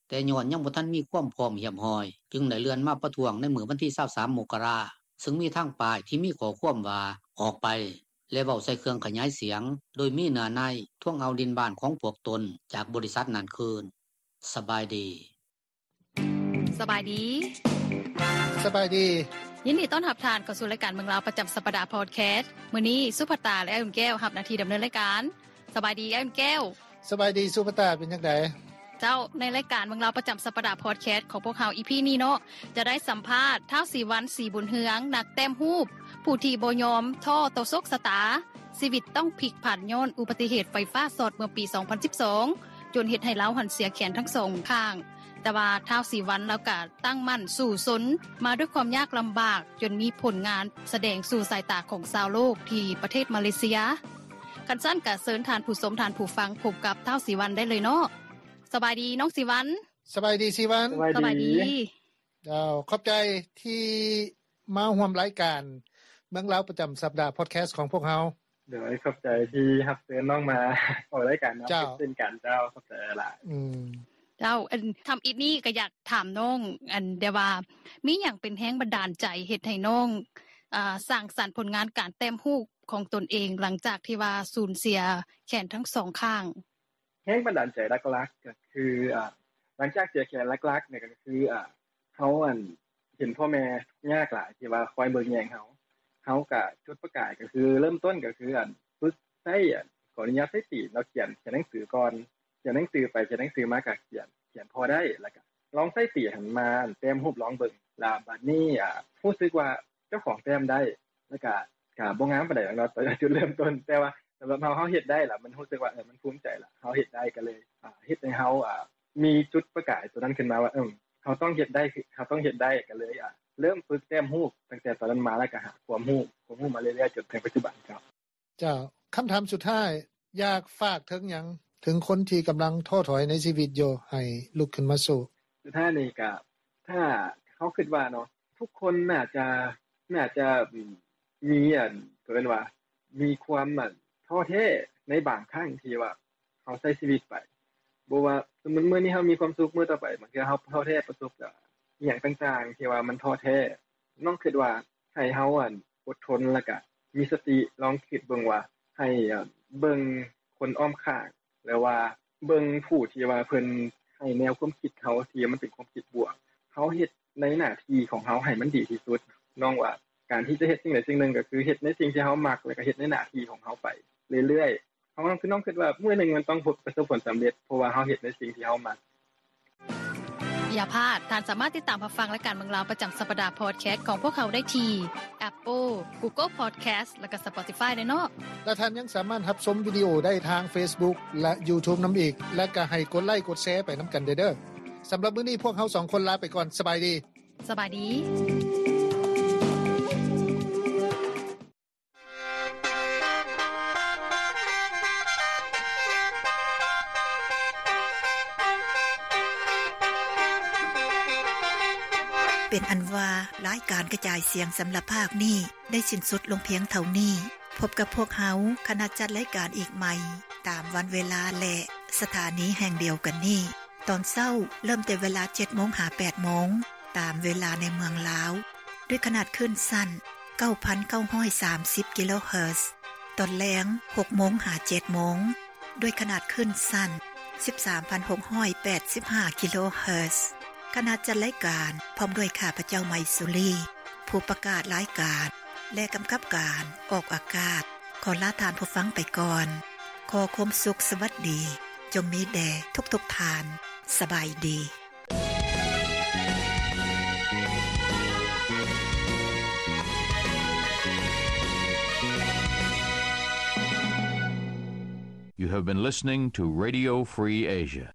ແຕ່ຍ້ອນຍັງບໍ່ທັນມີຄວາມພ້ອມຮຽບຮ້ອຍ, ຈຶ່ງໄດ້ເລື່ອນມາປະທ້ວງໃນມື້ວັນທີ ຊາວສາມ ມົກກະລາ, ຊຶ່ງມີທັງປ້າຍທີ່ມີຂໍ້ຄວາມວ່າ ອອກໄປ ແລະ ເວົ້າໃສ່ເຄື່ອງຂະຫຍາຍສຽງ, ໂດຍມີເນື້ອໃນທວງເອົາດິນບ້ານຂອງພວກຕົນຈາກບໍລິສັດນັ້ນຄືນ. ສະບາຍດີ. ສະບາຍດີ. ສະບາຍດີ. ຍິນດີຕ້ອນຮັບທ່ານເຂົ້າສູ່ລາຍການເມືອງລາວປະຈຳສັບປະດາພອດແຄສ. ມື້ນີ້ສຸພັດຕາ ແລະ ອ້າຍອຸ່ນແກ້ວຮັບໜ້າທີ່ດຳເນີນລາຍການ. ສະບາຍດີ ອ້າຍອຸ່ນແກ້ວ. ສະບາຍດີສຸພັດຕາ, ເປັນຈັ່ງໃດ? ເຈົ້າ, ໃນລາຍການເມືອງລາວປະຈຳສັບປະດາພອດແຄສຂອງພວກເຮົາ ອີພີ ນີ້ເນາະ, ຈະໄດ້ສຳພາດທ້າວ ສີວັນ ສີບຸນເຮືອງ, ນັກແຕ້ມຮູບ ຜູ້ທີ່ບໍ່ຍອມທໍ້ຕໍ່ໂຊກຊະຕາ, ຊີວິດຕ້ອງພິກຜັນຍ້ອນອຸບັດຕິເຫດໄຟຟ້າຊັອດເມື່ອປີ ສອງພັນສິບສອງ ຈົນເຮັດໃຫ້ລາວຫັ້ນເສຍແຂນທັງສອງຂ້າງ. ແຕ່ວ່າທ້າວ ສີວັນ ລາວກະຕັ້ງໝັ້ນສູ້ຊົນມາດ້ວຍຄວາມຍາກລຳບາກ, ຈົນມີຜົນງານສະແດງສູ່ສາຍຕາຂອງຊາວໂລກທີ່ປະເທດມາເລເຊຍ. ຄັນຊັ້ນກະເຊີນທ່ານຜູ້ຊົມ, ທ່ານຜູ້ຟັງ ພົບກັບທ້າວ ສີວັນ ໄດ້ເລີຍເນາະ. ສະບາຍດີນ້ອງສີວັນ. ສະບາຍດີສີວັນ. ສະບາຍດີ. ເຈົ້າ ຂອບໃຈທີ່ມາຮ່ວມລາຍການເມືອງລາວປະຈຳສັບດາພອດແຄສຂອງພວກເຮົາ. ໂດຍ ຂອບໃຈທີ່ຮັບເຊີນນ້ອງມາອອກລາຍການນຳ. ເຈົ້າ ເຊັ່ນກັນເຈົ້າ ຂອບໃຈຫຼາຍ. ອືມ ເຈົ້າ ອັນ ທຳອິດນີ້ກໍຢາກຖາມນ້ອງ ອັນ ແຕ່ວ່າມີຫຍັງເປັນແຮງບັນດານໃຈເຮັດໃຫ້ນ້ອງ ອາ ສ້າງສັນຜົນງານການແຕ້ມຮູບຂອງຕົນເອງ ຫຼັງຈາກທີ່ວ່າສູນເສຍແຂນທັງສອງຂ້າງ? ແຮງບັນດານໃຈຫຼັກໆ ກໍຄື ອາ ຫຼັງຈາກເສຍແຂນ ຫຼັກໆ ນີ້ກໍຄື ອາ ເຮົາ ອັນ ເຫັນພໍ່ແມ່ຍາກຫຼາຍທີ່ວ່າຄອຍເບິ່ງແຍງເຮົາ ເຮົາກະຈຸດປະກາຍກໍຄືເລີ່ມຕົ້ນກໍຄື ອັນ ຝຶກໃຊ້ ອັນ ຂໍອະນຸຍາດໃຊ້ຕີນເນາະ ຂຽນ ຂຽນໜັງສືກ່ອນ ຂຽນໜັງສືໄປຂຽນໜັງສືມາ ກະຂຽນ ຂຽນພໍໄດ້ ແລ້ວກະລອງໃຊ້ຕີຫັ້ນມາ ອັນ ແຕ້ມຮູບລອງເບິ່ງ ລະບາດນີ້ ອາ ຮູ້ສຶກວ່າເຈົ້າຂອງແຕ້ມໄດ້ ແລ້ວກະ ກະບໍ່ງາມປານໃດດອກເນາະ ຕອນຈຸດເລີ່ມຕົ້ນ ແຕ່ວ່າສຳລັບເຮົາ ເຮົາເຮັດໄດ້ລະ ມັນຮູ້ສຶກວ່າ ເອີ ມັນພູມໃຈລະ ເຮົາເຮັດໄດ້ ກໍເລີຍ ອາ ເຮັດໃຫ້ເຮົາ ອາ ມີຈຸດປະກາຍໂຕນັ້ນຂຶ້ນມາວ່າ ເອີ ເຮົາຕ້ອງເຮັດໄດ້ ເຮົາຕ້ອງເຮັດໄດ້ ກໍເລີຍ ອາ ເລີ່ມຝຶກແຕ້ມຮູບຕັ້ງແຕ່ຕອນນັ້ນມາ ແລ້ວກໍຫາຄວາມຮູ້ ຄວາມຮູ້ມາເລື້ອຍໆ ຈົນເຖິງປັດຈຸບັນເຈົ້າ. ເຈົ້າ ຄຳຖາມສຸດທ້າຍ ຢາກຝາກເຖິງຫຍັງເຖິງຄົນທີ່ກຳລັງທໍ້ຖອຍໃນຊີວິດຢູ່ ໃຫ້ລຸກຂຶ້ນມາສູ້? ສຸດທ້າຍນີ້ກະ ຖ້າເຮົາຄິດວ່າເນາະ ທຸກຄົນໜ້າຈະ ໜ້າຈະ ອືມ ມີ ອັນ ເຂົາເອີ້ນວ່າ ມີຄວາມ ອັນ ທໍ້ແທ້ໃນບາງຄັ້ງທີ່ວ່າ ເຮົາໃຊ້ຊີວິດໄປ ບໍ່ວ່າສົມມຸດມື້ນີ້ເຮົາມີຄວາມສຸກ ມື້ຕໍ່ໄປບາງເທື່ອເຮົາທໍ້ແທ້ ປະສົບກັບອີ່ຫຍັງຕ່າງໆ ທີ່ວ່າມັນທໍ້ແທ້ ນ້ອງຄິດວ່າໃຫ້ເຮົາ ອັນ ອົດທົນ ແລ້ວກະມີສະຕິ ລອງຄິດເບິ່ງວ່າ ໃຫ້ ອັນ ເບິ່ງຄົນອ້ອມຂ້າງ ຫຼືວ່າເບິ່ງຜູ້ທີ່ວ່າເພິ່ນໃຫ້ແນວຄວາມຄິດເຮົາ ທີ່ມັນເປັນຄວາມຄິດບວກ ເຮົາເຮັດໃນໜ້າທີ່ຂອງເຮົາໃຫ້ມັນດີທີ່ສຸດ ນ້ອງວ່າການທີ່ຈະເຮັດສິ່ງໃດສິ່ງໜຶ່ງ ກໍຄືເຮັດໃນສິ່ງທີ່ເຮົາມັກ ແລ້ວກໍເຮັດໃນໜ້າທີ່ຂອງເຮົາໄປເລື້ອຍໆ ເຮົາ ຄືນ້ອງຄິດວ່າມື້ໜຶ່ງມັນຕ້ອງພົບ ປະສົບຜົນສຳເລັດ ເພາະວ່າເຮົາເຮັດໃນສິ່ງທີ່ເຮົາມັກ. ຢ່າພາດ, ທ່ານສາມາດຕິດຕາມຮັບຟັງລາຍການເມືອງລາວປະຈຳສັບປະດາພອດແຄສຂອງພວກເຮົາໄດ້ທີ່ Apple, Google Podcast ແລະ Spotify ເດີເນາະ. ແລະ ທ່ານຍັງສາມາດຮັບຊົມວິດີໂອໄດ້ທາງ Facebook ແລະ YouTube ນຳອີກ, ແລະ ກໍໃຫ້ກົດໄລກົດແຊໄປນຳກັນເດີ. ສຳລັບມື້ນີ້ພວກເຮົາສອງຄົນລາໄປກ່ອນ. ສະບາຍດີ. ສະບາຍດີ. ເປັນອັນວ່າ ລາຍການກະຈາຍສຽງສຳລັບພາກນີ້ ໄດ້ສິ້ນສຸດລົງພຽງເທົ່ານີ້. ພົບກັບພວກເຮົາ ຄະນະຈັດລາຍການອີກໃໝ່ ຕາມວັນເວລາ ແລະ ສະຖານີແຫ່ງດຽວກັນນີ້. ຕອນເຊົ້າເລີ່ມແຕ່ເວລາເຈັດໂມງຫາແປດໂມງ ຕາມເວລາໃນເມືອງລາວ ດ້ວຍຂະໜາດຄື້ນສັ້ນ ເກົ້າພັນເກົ້າຮ້ອຍສາມສິບ ກິໂລເຮີດ. ຕອນແລງ ຫົກໂມງຫາເຈັດໂມງ ດ້ວຍຂະໜາດຄື້ນສັ້ນ ສິບສາມພັນຫົກຮ້ອຍແປດສິບຫ້າ ກິໂລເຮີດ. ຄະນະຈັດລາຍການ ພ້ອມດ້ວຍຂ້າພະເຈົ້າ ໄມຊູລີ ຜູ້ປະກາດລາຍການ ແລະ ກຳກັບການອອກອາກາດ ຂໍລາທ່ານຜູ້ຟັງໄປກ່ອນ. ຂໍຄວາມສຸກສະຫວັດດີ ຈົ່ງມີແດ່ທຸກໆທ່ານ. ສະບາຍດີ. You have been listening to Radio Free Asia.